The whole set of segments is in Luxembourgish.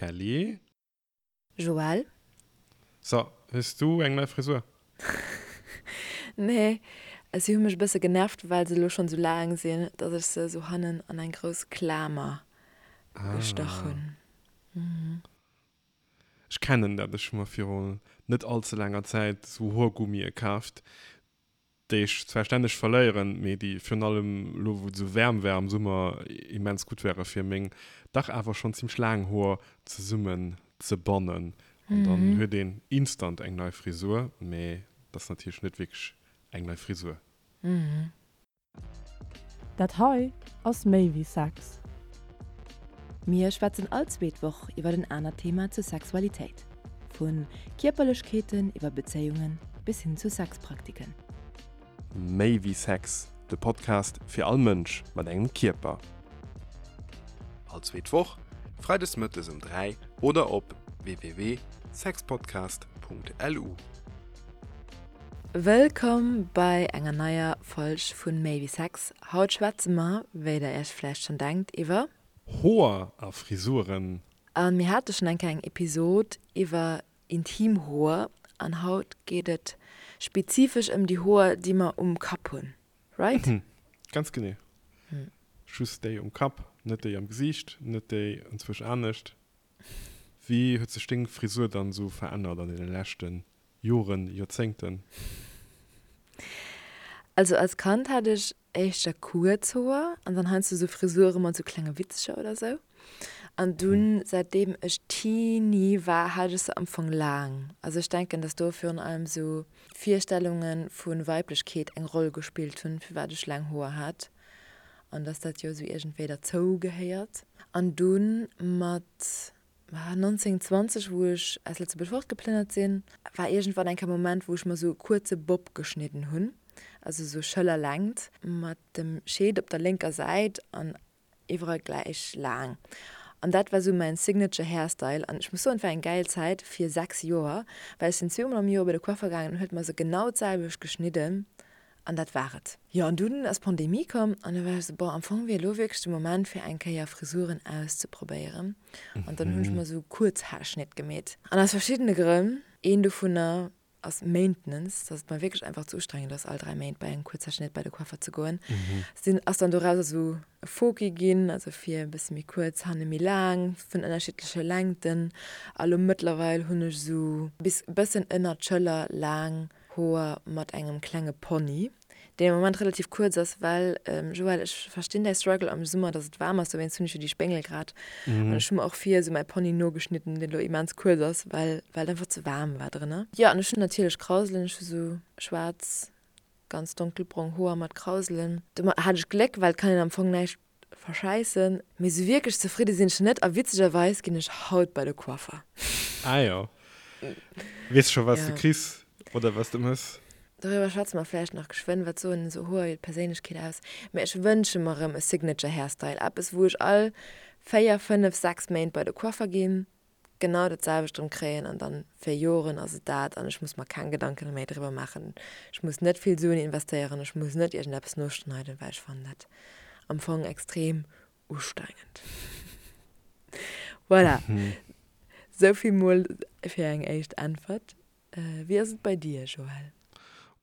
Kelly. Joël. So, hues du eng nei Frisur? Nee, si hu mech e bësse genervt, well se elo schonn esou laang sinn, dass ech se esou hannen an eng grouss Klamer gestach hunn. Ech kennen dat, ech hu mer viru net all ze laanger Zäit esou Hoergummie kaaft, déi ech zwar stänneg verléieren, mee déi virun allem elo wou et esou waarm war am Summer immens gutt ware fir meng dach awer schonn zimmlech laang Hoer zesummen ze bannen. An dann huet een instant eng nei Frisur, mee et ass natierlech net wierklech eng nei Frisur. Dat hei ass méi wéi Sex. Mir schwätzen all zweet Woch iwwer en anert Thema zur Sexualitéit. Vu Kierperlechkeeten iwwer Bezéiungen bis hin zu Sexpraktiken. Méi wéi Sex, de Podcast fir all Mënsch mat engem Kierper. All zweet Woch, freides mëttes um 3 oder op www.sexpodcast.lu. Wëllkomm bei enger neier Folg vun Méi wéi Sex. Haut schwätze mer, wéi der iech vläicht schonn denkt, iwwer. Hoer a Frisuren. A mir hate schonn eng Kéier eng Episod iwwer intim Hoer an haut geet et spezifesch ëm déi Hoer, déi mer um Kapp hunn, right? Ganz genee. Just déi um Kapp, net déi am Gesiicht, net déi enzwousch anescht. Wéi huet sech deng Frisur dann esou verännert an deene leschte Joren, Joerzéngten? Also als Kand hat ech éischter kuerz Hoer an dann heiansdo sou Frisure mat sou klenge Witzcher oder sou. An dunn säitdeem ech Teenie war, hat ech se am Fong laang. Also ech denken, dass do virun allem sou Virstellunge vu Weiblechkeet eng Roll gespillt hunn, firwat ech laang Hoer hat an dass dat jo sou iergendwéi derzou gehéiert. An dunn mat 19, 20, wou ech aus Lëtzebuerg fortgeplënnert sinn, war iergendwann eng Kéier e Moment, wou ech mer sou e kuerze Bob geschnidden hunn, also sou Schëllerlängt, mat dem Scheed op der lénker Säit an iwwerall gläich laang. An dat war sou mäin Signature Hairstyle. An ech muss soen, et war eng gäil Zäit fir 6 Joer, well ech sinn zweemol am Joer bei de Coiffer gaangen an huet mer se genau d'selwecht geschnidden. An dat war et. Jo, an dunn ass d'Pandemie komm an da war ech esou, bon, am Fong wier elo wierklech de Moment fir eng Kéier Frisuren auszeprobéieren. An dann hunn ech mer esou Kuerzhaarschnitt gemeet. An aus verschiddene Grënn, een dovunner ass Maintenance, dass et mer wierklech einfach ze ustrengend ass all 3 Méint bei engem Kuerzhaarschnitt bei de Coiffer ze goen, sinn, ass dann dorauser esou e Foki ginn, also vir e bësse méi kuerz, hanne méi laang, vun ënnerschiddleche Längten. A lo mëttlerweil hunn ech esou bis e bëssen ënnert d'Schëller laang Hoer mat engem klenge Pony, deen am Moment relativ kuerz ass, well, Joël, ech verstinn däi Struggle am Summer, dass et waarm ass, dowéinst hunn ech jo déi Spéngel grad an ech hu mer och vir esou mäi Pony nogeschnidden, deen elo immens kuerz ass, well well et einfach ze waarm war drënner. Jo, an ech hunn natierlech Krauselen, ech hu sou schwaarz, ganz donkelbrong Hoer mat Krauselen. Domat hat ech Gléck, well et kann een am Fong näischt Verschäissen. Mee sou wierklech zefridde sinn ech net a witzegerweis ginn ech haut bei de Coiffer. Ah jo. Weess scho wat s de kriss oder wat s de mëss? Doriwwer schwätze mer vläicht nach geschwënn. Wat soen esou Hoer iwwer d'Perséinlechkeet aus? Mee ech wënsche mer erëm e Signature Hairstyle, eppes wou ech all 4, 5, 6 Méint bei de Coiffer ginn, genau dat selwecht erëm kréien an dann fir Joren ass et dat an ech muss mer keng Gedanken méi driwwer maachen. Ech muss net vill Suen investéieren, ech muss net iergendeppes noschneiden, well ech fannen dat am Fong extrem ustrengend. Voilà, souvill mol fir eng éischt Äntwert. Wéi ass et bei dir, Joël?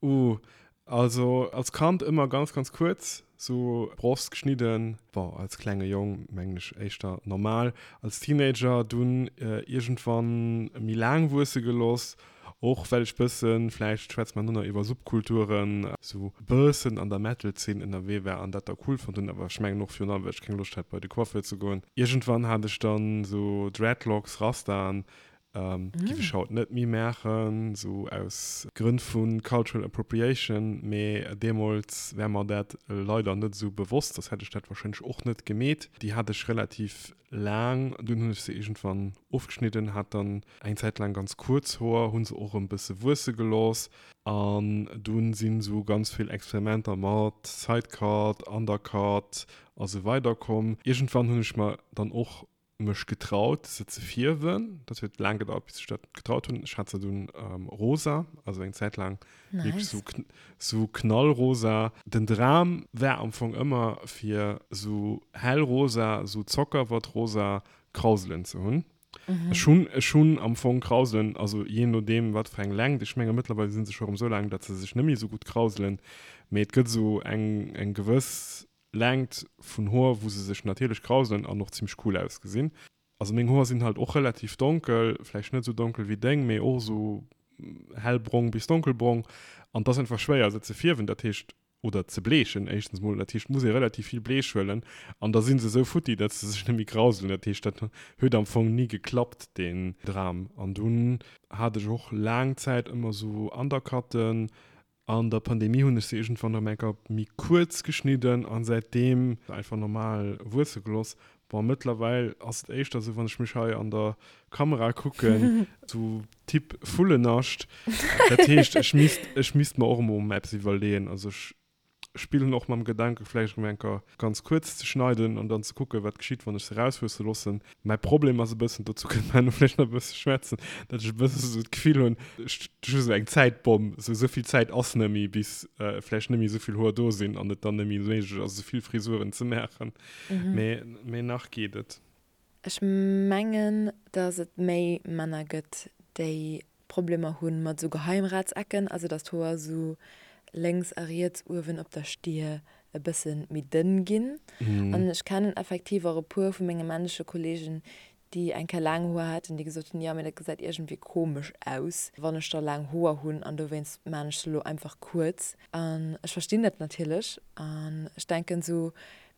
Uh, also als Kand ëmmer ganz ganz kuerz, sou Brosst geschnidden, bon als klenge Jong mengen ech éischter normal, als Teenager dunn iergendwann méi laang wuesse geloss, och well ech bëssen, vläicht schwätze mer no nach iwwer Subkulturen, sou bëssen an der Metal-Zeen ënnerwee war an dat da cool fonnt hunn, awer ech mengen och virun allem well ech keng Loscht hat bei de Coiffeur ze goen. Iergendwann hat ech dann sou Dreadlocks, Rastaen, Giff ech haut net méi maachen, sou aus Grënn vu cultural appropriation, mee deemols war mer dat leider net esou bewosst, soss hätt ech dat warscheinlech och net gemeet. Déi hat ech relativ laang, dunn hunn ech se iergendwann ofgeschnidden, hat dann eng Zäit laang ganz kuerz Hoer, hunn se och erëm bësse wuesse gelooss an dunn sinn esou ganz vill Experimenter mat Sidecut, Undercut a sou weider komm. Iergendwann hunn ech mer dann och mech getraut se ze fierwen. Dat huet laang gedauert bis ech dat getraut hunn. Ech hat se dunn rosa, also eng Zäit laang wierklech sou sou knallrosa. Den Dram war am Fong ëmmer fir sou hellrosa, sou Zockerwattrosa Krauselen ze hunn. Ech hunn, ech hunn am Fong Krauselen, also jee nodeem wat fir eng Längt, ech menge mëttlerweil si se scho erëm esou laang, datt se sech net méi esou gutt krauselen, mee et gëtt esou eng, eng gewëss Längt vun Hoer, wou se sech natierlech krauselen an och zimmlech cool ausgesinn. Also meng Hoer sinn halt och relativ donkel, vläicht net esou donkel wéi deng, mee och esou hellbrong bis donkelbrong an et ass einfach schwéier se ze fierwen, dat heescht, oder ze bleechen éischtens mol, dat heescht et muss ee relativ vill Bleech huelen an da si se esou futti, datt se sech net méi krauselen, dat heescht dat huet am Fong ni geklappt deen Dram. An dunn hat ech och laang Zäit ëmmer esou Undercutten An der Pandemie hunn ech se iergendwann erëm eng Kéier méi kuerz geschnidden an säitdeem einfach normal wuesse geloss. Bon, mëttlerweil ass et éischter esou, wann ech mech hei an der Kamera kucken, sou Typ Vullennascht. Dat heescht, ech misst, ech misst mer och emol eppes iwwerleeën. Also ech spillen och mam Gedanke vläicht erëm eng Kéier ganz kuerz ze schneiden an dann ze kucken, wat geschitt, wann ech se erauswuesse loossen. Mäi Problem ass e bëssen, dozou kënne mer herno vläicht nach e bësse schwätzen, datt ech e bësse sou d'Gefill hunn, ech hu sou eng Zäitbomm, sou esou vill Zäit ass net méi, bis vläicht net méi esou vill Hoer do sinn an et dann net méi méiglech ass, esou vill Frisuren ze maachen. Mee, mee nach geet et. Ech mengen, datt et méi Männer gëtt, déi Problemer hunn mat esou Geheimratsecken, also dass d'Hoer esou lénks a riets uewen op der Stier e bësse méi dënn ginn. An ech kennen effektiv och e puer vu menge männleche Kollegen, déi eng Kéier laang Hoer haten, déi gesot hunn, jo mee dat gesäit iergendwéi komesch aus, wann ech da laang Hoer hunn an dowéinst maan ech se elo einfach kuerz. An ech verstinn dat natierlech an ech denken esou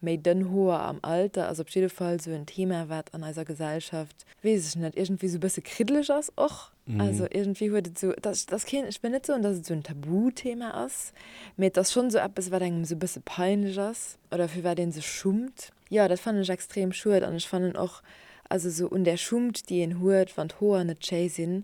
Méi dënn Hoer am Alter ass op jidde Fall sou en Thema, wat an eiser Gesellschaft, weess ech net, iergendwéi sou e bësse kriddeleg ass och. Also iergendwéi huet et sou, et ass, et ass keen, ech wëll net soen, dass et sou en Tabuthema ass, mee et ass schonn sou eppes, wat engem sou e bësse peinlech ass oder fir wat ee sech schummt. Jo, dat fannen ech extrem schued an ech fannen och, also sou un där Schummt, déi een huet, wann d'Hoer net schéi sinn,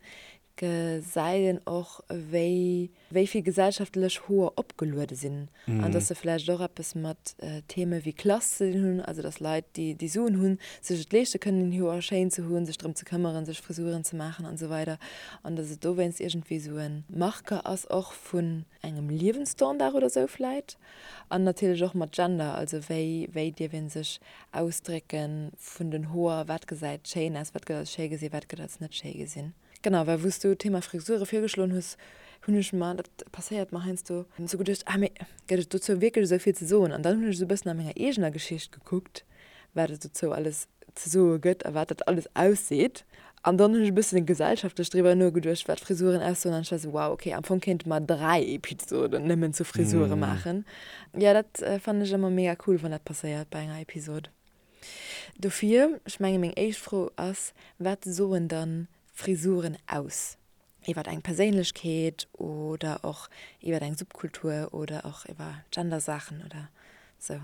gesäit een och, wéi wéi vill gesellschaftlech Hoer opgeluede sinn an dass se vläicht och eppes mat Theme wéi Klass ze dinn hunn, also dass Leit, déi déi Suen hunn, sech et leeschte kënnen, hir Hoer schéin ze hunn, sech drëm ze këmmeren, sech Frisuren ze maachen an esou weider an dass et dowéinst iergendwéi esou e Marker ass och vun engem Liewensstandard oder esou vläicht an natierlech och mat Gender, also wéi wéi dierf ee sech ausdrécke vun den Hoer, wat gesäit schéin aus, wat gëtt als schéi gesinn, wat gëtt als net schéi gesinn. Genau, well wou s du d'Thema Frisure virgeschloen hues, hunn ech mer, dat passéiert mer heiansdo, esou geduecht, ah mee gëtt et dozou wierklech esou vill ze soen? An dann hunn ech esou e bëssen a menger eegener Geschicht gekuckt, wat et dozou alles ze soe gëtt a wat dat alles ausseet. An dann hunn ech e bëssen gesellschaftlech driwwer nogeduecht, wat Frisuren aussoen an ech war esou, wow, okay, am Fong kéinte mer 3 Episoden nëmmen zu Frisure maachen. Jo, dat fannen ech ëmmer mega cool, wann dat passéiert bei enger Episod. Dofir, ech menge meng éischt Fro ass, Wat soen dann Frisuren aus iwwer eng Perséinlechkeet oder och iwwer eng Subkultur oder och iwwer Gendersaachen oder sou?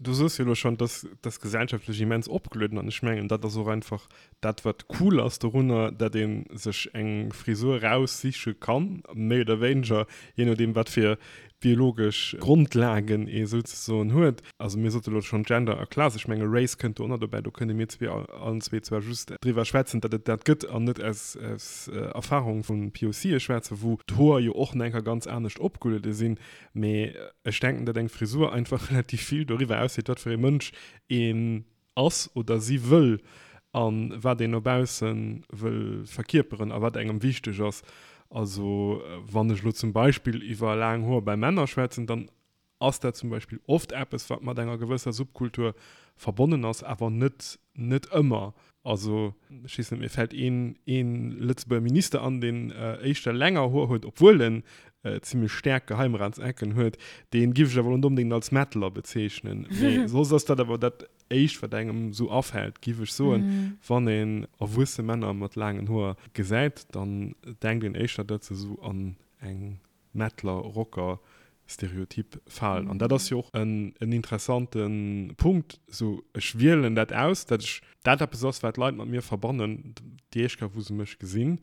Du soos jo elo schonn, dass dat gesellschaftlech immens opgelueden an ech mengen, dat ass och einfach dat wat cool ass dorunner, dat ee sech eng Frisur eraussiche kann, méi oder wéineger, jee nodeem wat fir biologesch Grondlagen ee souzesoen huet. Also mir sote lo schonn Gender a Class, ech menge Race kënnt do och nach dobäi, do kënne mir zwee allen zwee zwar just driwwer schwätzen, datt et dat gëtt an net aus Erfahrung vu POCe schwätzen, wou d'Hoer jo och nach eng Kéier ganz anescht opgeluede sinn. Mee ech denken, datt eng Frisur einfach relativ vill doriwwer ausseet, wat fir ee Mënsch een ass oder si wëll a wat een no bausse wëll verkierperen a wat engem wichteg ass. Also wann ech elo zum Beispill iwwer laang Hoer bei Männer schwätzen, dann ass dat zum Beispill oft eppes, wat mat enger gewësser Subkultur verbonnen ass, awer net net ëmmer. Also ech weess net, mir fält een een Lëtzebuerger Minister an, deen éischter länger Hoer huet, obwuel en zimmlech staark Geheimratsecken huet, dee giff ech awer elo net onbedéngt als Metaler bezeechnen. Mee soss ass dat awer dat éischt, wat engem esou afält, giff ech soen. Wann een erwuesse Männer mat laangen Hoer gesäit, dann denkt een éischter, datt se esou an eng Metaler, Rocker Stereotyp falen. An dat ass jo och en interessante Punkt, esou ech wielen dat aus, datt ech dat eppes ass, wat d'Leit mat mir verbannen, déi éischt Kéier wou se mech gesinn,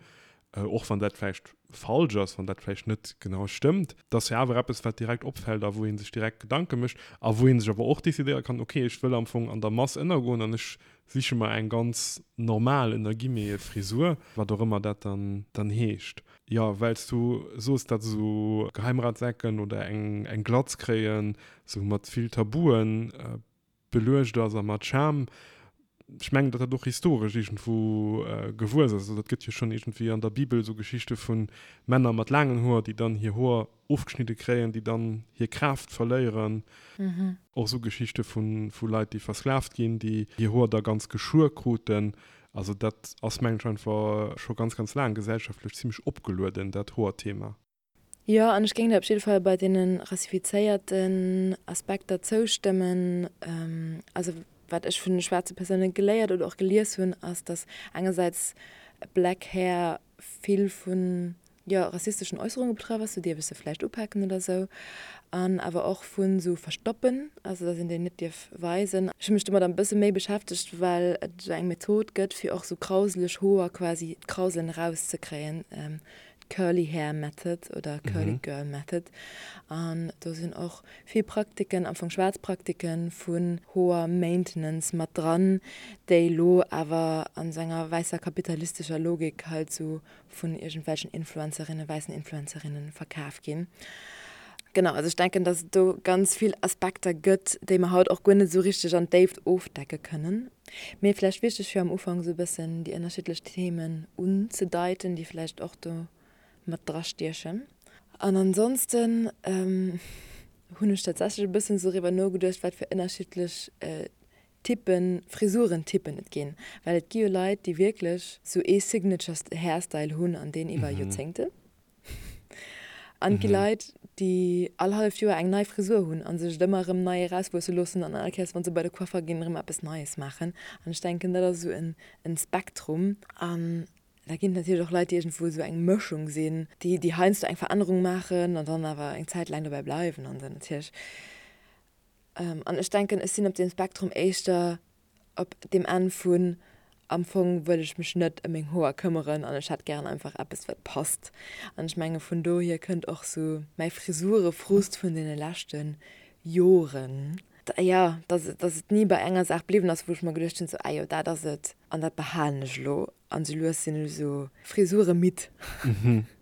och wann dat vläicht falsch ass, wann dat vläicht net genau stëmmt, et ass jo awer eppes, wat direkt opfält a wou ee sech direkt Gedanke mécht a wou ee sech awer och decidéiere kann, okay, ech wëll am Fong an der Mass ënnergoen an ech siche mer eng ganz normal, ënner Guillemete, Frisur, wat och ëmmer dat dann dann heescht. Jo, well s du soos, datt esou Geheimratsecken oder eng eng Glatz kréien esou mat vill Tabuen beluecht ass a mat Scham. Ech mengen, datt dat och historesch iergendwou gewuess ass. Also dat gëtt jo schonn iergendwéi an der Bibel esou Geschichte vu Männer mat laangen Hoer, déi dann hir Hoer ofgeschnidde kréien, déi dann hir Kraaft verléieren. Och esou Geschichte vu Leit, déi versklavt ginn, déi hir Hoer da ganz geschuer kruten. Also dat ass, mengen ech, einfach scho ganz, ganz laang gesellschaftlech zimmlech opgelueden, dat Hoerthema. Jo, an ech géing der op jidde Fall bei deene rassifizéierten Aspekter zoustëmmen. Also wat ech vun de schwaarze Persoune geléiert oder och gelies hunn, ass, datt engersäits Black Hair vill vun, jo, rassisteschen Äusserunge betraff ass, sou dierf ech se vläicht upaken oder sou, an awer och vu sou Verstoppen, also datt een déi net dierf weisen. Ech hu mech domat e bësse méi beschäftegt, well et esou eng Method gëtt, fir och sou krauseleg Hoer quasi d'Krauselen erauszekréien. Curly Hair Method oder Curly Girl Method an do sinn och vill Praktiken, am Fong schwaarz Praktiken vun Hoer Maintenance mat dran, déi lo awer an esou enger wäisser kapitalistescher Logik halt sou vun iergendwelchen Influencerinnen, wäissen Influencerinnen verkaf ginn. Genau, also ech denken, dass et do ganz vill Aspekter gëtt, déi mer haut och guer net esou richteg an d'Déift ofdecke kënnen. Mee vläicht wichteg fir am Ufank esou e bëssen déi ënnerschiddlech Themen unzedeiten, déi vläicht och do mat drastiechen. An ansonsten hunn ech tatsächlech e bëssen esou driwwer nogeduecht, wat fir ënnerschiddlech Typen, Frisurentypen et ginn. Well et gi jo Leit, déi wierklech esou ee Signature Hairstyle hunn an deen iwwer Joerzéngten. An et gi Leit, déi all halleft Joer eng nei Frisur hunn a sech et ëmmer erëm nei erauswuesse loossen an all Kéiers, wa se bei de Coiffer ginn, erëm eppes Neies maachen. An ech denken, dat ass esou en Spektrum. An da ginn et natierlech och Leit, déi iergendwou esou eng Mëschung sinn, déi, déi heiansdo eng Verännerung maachen an dann awer eng Zäit laang dobäi bleiwen an esou natierlech. An ech denken, ech sinn op deem Spektrum éischter op deem Enn vun, am Fong wëll ech mech net ëm meng Hoer këmmeren an ech hätt gären einfach eppes wat passt. An ech menge vun dohier kënnt och sou mäi Frisurefrust vun deene leschte Joren, jo, dass dass et ni bei enger Saach bliwwen ass, wou ech mer geduecht hunn, sou, ah jo, dat ass et an dat behalen ech elo. An sou lues sinn ech sou frisuremidd.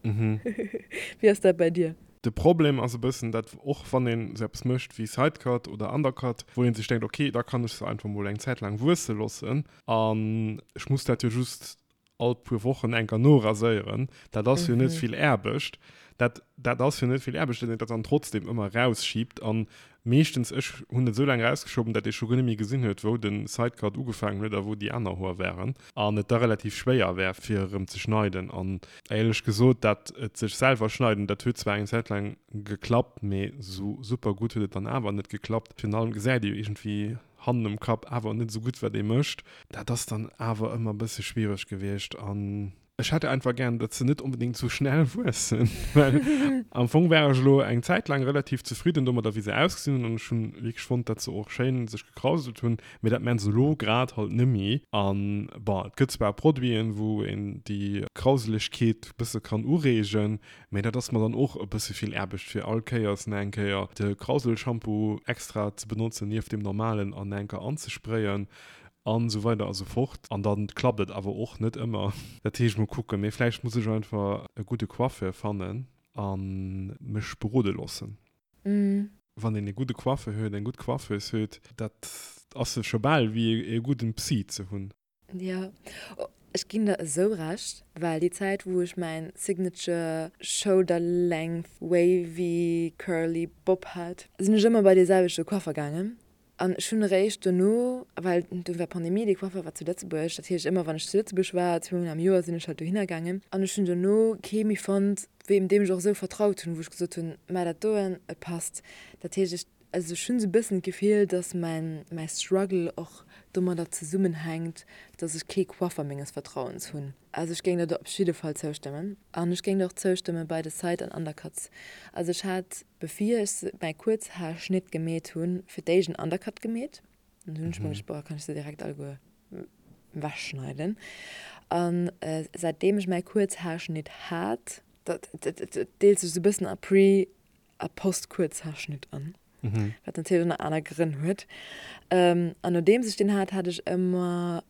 Wéi ass dat bei dir? De Problem ass e bëssen, dat och wann een esou eppes mécht wéi Sidecut oder Undercut, wou een sech denkt, ok, da kann ech se einfach mol eng Zäit laang wuesse loossen an ech muss dat jo just all puer Wochen eng Kéier noraséieren, dat ass jo net vill Aarbecht. Dat dat ass jo net vill Aarbecht, datt een dat dann trotzdem ëmmer erausschiebt an Meeschtens, ech hunn et esou laang erausgeschoben, dat ee scho guer net méi gesinn huet, wou de Sidecut ugefaangen huet a wou déi aner Hoer waren an et da relativ schwéier war, fir erëm ze schneiden. An éierlech gesot, dat et sech selwer schneiden, dat huet zwar eng Zäit laang geklappt, mee esou super gutt huet et dann awer net geklappt. Virun allem gesäit ee jo iergendwéi hannen um Kapp awer net esou gutt, wat ee mécht. Dat ass dann awer ëmmer e bësse schwiereg gewiescht an Ech hätt einfach gären, datt se net onbedéngt sou schnell wuessen, well am Fong war ech elo eng Zäit laang relativ zefridden domadder, wéi se ausgesinn hunn an ech hunn wierklech fonnt, datt se och schéin sech gekrauselt hunn, mee dat maan se elo grad halt nemmi. An bon, et gëtt zwar Produiten, wou een déi Krauselegkeet bësse kann ureegen, mee dat ass mer dann och e bësse vill Aarbecht, fir all Kéiers nach eng Kéier de Krauselshampoo extra ze benotzen nieft deem normalen an nach eng Kéier anzesprayen. An esou weider a sou fort. An dann klappt et awer och net ëmmer. Dat heescht, mol kucken. Mee vläicht muss ech einfach e gudde Coiffeur fannen a mech berode loossen. Wann een e gudde Coiffeur huet, eng gutt Coiffeuse huet, dat ass scho bal wéi e gudden Psy ze hunn. Jo, ech ginn der esou Recht, well déi Zäit wou ech mäin signature shoulder length wavy curly bob hat, sinn ech ëmmer bei dee selwechte Coiffer gaangen An ech hunn eréischt dono, well do war Pandemie, dee Coiffer war zu Lëtzebuerg, dat heescht ëmmer wann ech zu Lëtzebuerg war, zweemol am Joer sinn ech halt dohinner gaangen, an ech hunn dono kee méi fonnt, wéi deem ech och esou vertraut hunn, wou ech gesot hunn, Mä dat doen, et passt. Dat heescht, ech, also ech hunn esou e bëssen d'Gefill, datt mäin, mäi Struggle och domadder zesummenhänkt, datt ech kee Coiffer menges Vertrauens hunn. Also ech géing der do op jidde Fall zoustëmmen. An ech géing der och zoustëmme bei de Side an Undercuts. Also ech hat, bevir ech mäi Kuerzhaarschnitt gemeet hunn, fir d'éischt en Undercut gemeet. An dunn hunn ech mer geduecht, boah, kann ech se direkt alleguer ewechschneiden. An säitdeem ech mäi Kuerzhaarschnitt hat, dat deelt sech esou e bëssen a Pre a Post-Kuerzhaarschnitt an, wat natierlech och nach aner Grënn huet. An nodeems ech deen hat, hat ech ëmmer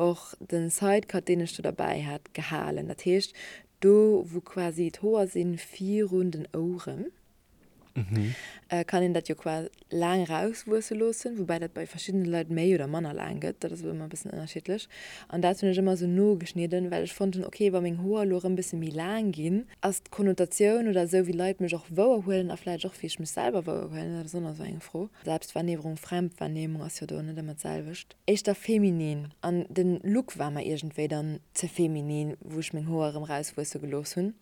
och den Sidecut deen ech do derbäi hat gehalen, dat heescht do wou quasi d'Hoer sinn virun den Oueren. Kann een dat jo qua laang erauswuesse loossen, woubäi dat bei verschiddene Leit méi oder manner laang gëtt, dat ass ëmmer e bëssen ënnerschiddlech. An dat hunn ech ëmmer esou nogeschnidden, well ech fonnt hunn, ok, wa meng Hoer elo erëm bësse méi laang ginn, ass d'Konnotatioun oder esou wéi Leit mech och wouerhuelen a vläicht och wéi ech mech selwer wouerhuelen, dat ass och nach esou eng Fro, Selbstwahrnehmung, Fremdwahrnehmung ass jo do net ëmmer d'selwecht, éischter feminin. An den Look war mer iergendwéi dann ze feminin, wou ech meng Hoer erëm erauswuesse gelooss hunn.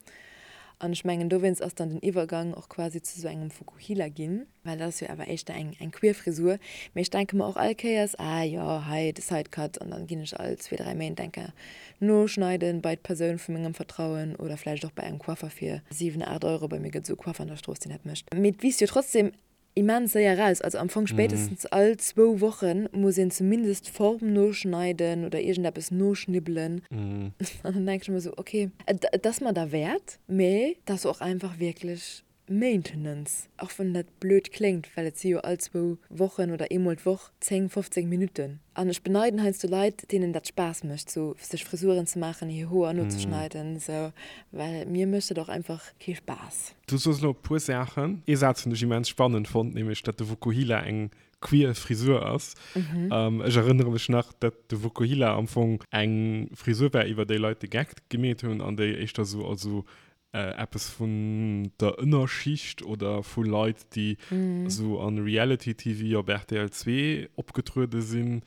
An ech mengen, dowéinst ass dann den Iwwergang och quasi zu sou engem Fukuhila ginn, well dat ass jo awer éischter eng eng queer Frisur. Mee ech denke mer och all Kéiers, ah jo, hei de Sidecut an dann ginn ech all zwee, dräi Méint eng Kéier noschneiden bei d'Persoun vu mengem Vertrauen oder vläicht och bei engem Coiffer fir 7, 8 Euro. Bei mir gëtt esou e Coiffer an der Strooss, deen dat mécht. Mee et wiisst jo trotzdem Immens séier eraus. Also am Fong spéitestens all zwou Woche muss een zumindest d'Form noschneiden oder iergendeppes noschnibbelen. An dann denke ech ëmmer esou, ok, et ass mer derwäert, mee et ass och einfach wierklech Maintenance, och wann dat blöd kléngt, well et si jo all zwou Wochen oder eemol d'Woch 10, 15 Minutten. An ech beneiden heiansdo Leit, deenen dat Spaass mécht, sou sech Frisuren ze maachen, hir Hoer nozeschneiden, sou, well mir mécht dat och einfach kee Spaass. Du soos elo e puer Saachen. Ee Saz hunn ech immens spannend fonnt, nämlech datt de Vokuhila eng queer Frisur ass. Ech erënnere mech nach, datt de Vokuhila am Fong eng Frisur war, iwwer déi Leit de Geck gemeet hunn an déi éischter sou als sou eppes vun der Ënnerschicht oder vu Leit, déi sou an Reality-TV op rtl 2 opgetruede sinn,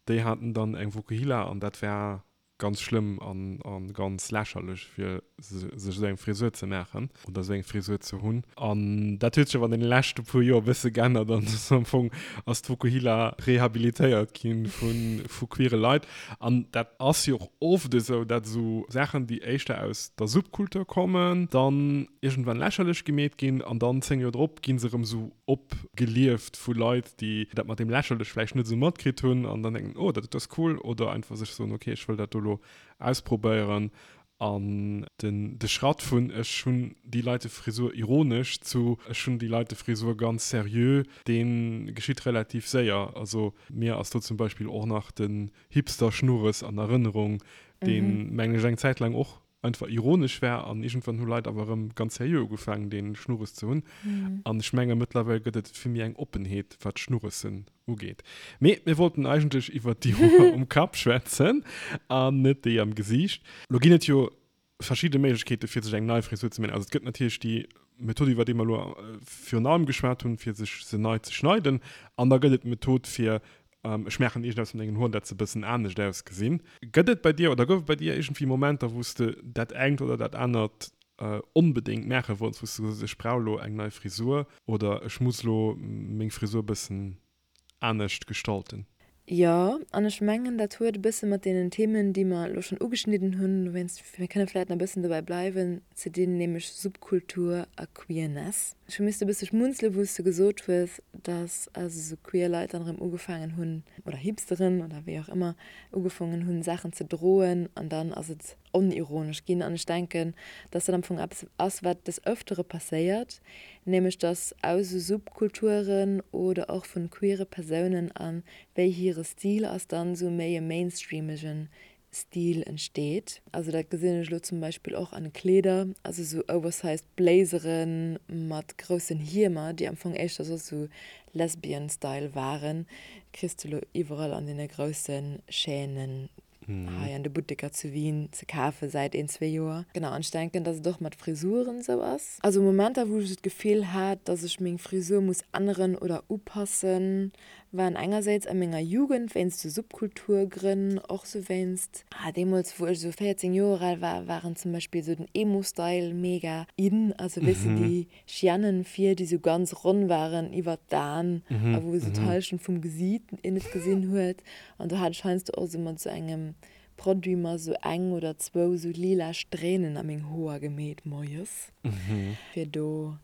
déi haten dann eng Vokuhila an dat war ganz schlëmm an ganz lächerlech fir sech esou eng Frisur ze maachen oder esou eng Frisur ze hunn. An dat huet sech awer an deene leschte puer Joer e bësse geännert an am Fong ass d'Vokuhila rehabilitéiert gi vu queere Leit. An dat ass jo och oft esou, dat esou Saachen, déi éischter aus der Subkultur kommen, dann iergendwann lächerlech gemeet ginn an dann 10 Joer drop gi se erëm esou opgelieft vu Leit, déi dat mat deem lächerlech vläicht net esou matkritt hunn an dann denken, oh, dat ass cool, oder einfach sech soen, okay, ech wëll dat do elo ausprobéieren. An den de Schratt vun ech hunn déi Leite Frisur ironesch zu ech hunn déi Leite Frisur ganz seriö, dee geschitt relativ séier. Also mir ass do zum Beispill och nach den Hipster-Schnurres an Erënnerung, deen, mengen ech, eng Zäit laang och einfach ironesch war an iergendwann hu Leit awer erëm ganz seriö ugefaangen dee Schnurres ze hunn. An ech menge mëttlerweil gëtt et vill méi eng Oppenheet wat Schnurressen ugeet. Mee mir wollten eigentlech iwwert déi Hoer um Kapp schwätzen an net déi am Gesiicht. Lo ginn et jo verschidde Méiglechkeete fir sech eng nei Frisur ze maachen. Also et gëtt natierlech déi Method iwwer déi mer elo virun allem geschwat hunn, fir sech se nei ze schneiden. An da gëtt et d'Method fir Ech maachen iergendeppes mat mengen Hoen, dat se e bëssen anescht ausgesinn. Gëtt et bei dir oder gouf et bei dir iergendwéi Momenter, wou s de dat engt oder dat anert onbedéngt maache wollts, wou s de gesot hues, ech brauch elo eng nei Frisur oder ech muss elo meng Frisur e bëssen anescht gestalten? Jo, an ech mengen, dat huet e bësse mat deenen Themen, déi mer elo schonn ugeschnidden hunn, dowéinst, mir kënne vläicht nach e bëssen dobäi bleiwen, ze dinn, nämlech Subkultur a Queerness. Ech hu misste e bësse schmunzelen, wou s de gesot hues, dass also sou queer Leit dann erëm ugefaangen hunn, oder Hipsteren oder wéi och ëmmer, ugefongen hunn, Saachen ze droen an dann ass et onironesch ginn. An ech denken, dass dat am Fong eppes ass, wat des Ëftere passéiert, nämlech dass aus esou Subkulturen oder och vun queere Persounen a wéi hire Stil ass, dann esou méi e mainstreamegen Stil entsteet. Also dat gesinn ech elo zum Beispill och an Kleeder, also sou oversized Blazere mat groussen Hiemer, déi am Fong éischter soss sou Lesbian Style waren, kriss de elo iwwerall an deene grousse Chaînen hei an de Butteker zu Wien ze kafe säit een, zwee Joer. Genau, an ech denken, dass et och mat Frisuren esou ass. Also Momenter, wou ech esou d'Gefill hat, dass ech meng Frisur muss änneren oder upassen, Waren engersäits a menger Jugend wéinst sou Subkulturgrënn, och sou wéinst, ah deemools wou ech sou 14 Joer al war, waren zum Beispill sou den Emo-Style mega in, also weess de déi Chiannen vir, déi sou ganz ronn waren iwwert d'Aen a wou sou d'Hallschent vum Gesiit een net gesinn huet. An do hat ech heiansdo och sou mat sou engem Produit mer sou eng oder zwou sou lila Strähnen a meng Hoer gemeet moies, fir do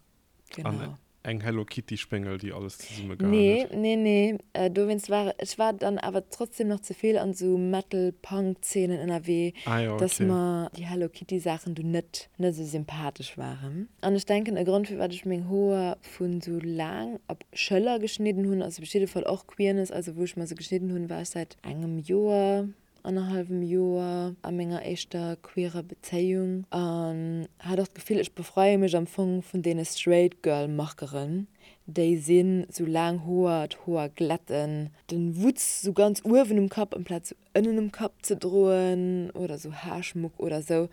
Genau. An eng Hello Kitty Spéngel, déi alles zesumme gehaen huet. Nee, nee, nee. Dowéinst war ech war dann awer trotzdem nach ze vill an sou Metal Punk Zeenen ënnerwee, ah, ja, okay. dass mer déi Hello Kitty Saachen du net net sou sympathesch waren. An ech denken e Grond firwat ech meng Hoer vun sou laang op Schëller geschnidden hunn, ass op jidde Fall och Queerness. Also wou ech mer se geschnidden hunn, war ech säit engem Joer. annerhallwem Joer a menger éischter queerer Bezéiung an hat och d'Gefill, ech befreie mech am Fong vun deene straight girl Markeren, déi sinn, sou laang Hoer, d'Hoer glätten, den Wutz sou ganz uewen um Kapp amplaz sou ënnen um Kapp ze droen oder sou Haarschmuck oder sou,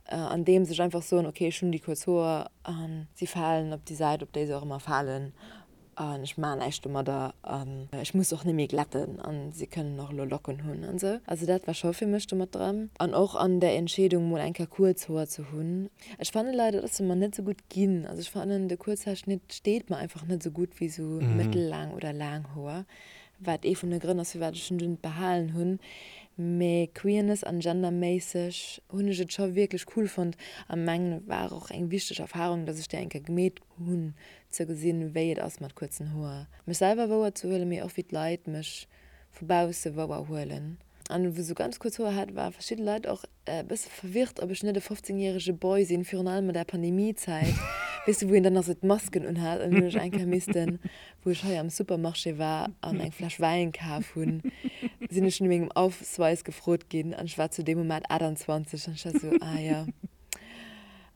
andeems ech einfach soen, ok ech hunn déi kuerz Hoer an si falen op déi Säit op déi se och ëmmer falen an ech maachen näischt domadder an ech muss och net méi glätten an si kënnen och elo Locken hunn an sou. Also dat war scho fir mech do mat dran an och an der Entscheedung mol eng Kéier kuerz Hoer ze hunn. Ech fanne leider, dass se mer net sou gutt ginn. Also ech fannen de Kuerzhaarschnitt steet mer einfach net sou gutt wéi sou mëttellaang oder laang Hoer, wat ee vun de Grënn ass firwat ech en dunn behalen hunn. Mee Queerness an genderméisseg hunn ech et scho wierklech cool fonnt a mengen et war och eng wichteg Erfarung, dass ech déi eng Kéier gemeet hunn, ze gesinn wéi et ass mat kuerzen Hoer mech selwer wouer ze huelen, mee och wéi d'Leit mech vu bausse wouer huelen. An wou sou ganz kuerz Hoer hat, ware verschidde Leit och e bësse verwirrt, ob ech net e 15 järege Boy sinn, virun allem an der Pandemiezäit, weess de, wou een dann nach sou d'Masken unhat. An hunn ech eng Kéier missten, wou ech hei am Supermarché war an eng Fläsch Wäin kaf hunn, sinn ech no mengem Ausweis gefrot ginn an ech war zu deem Moment 28 an ech war sou, ah ja,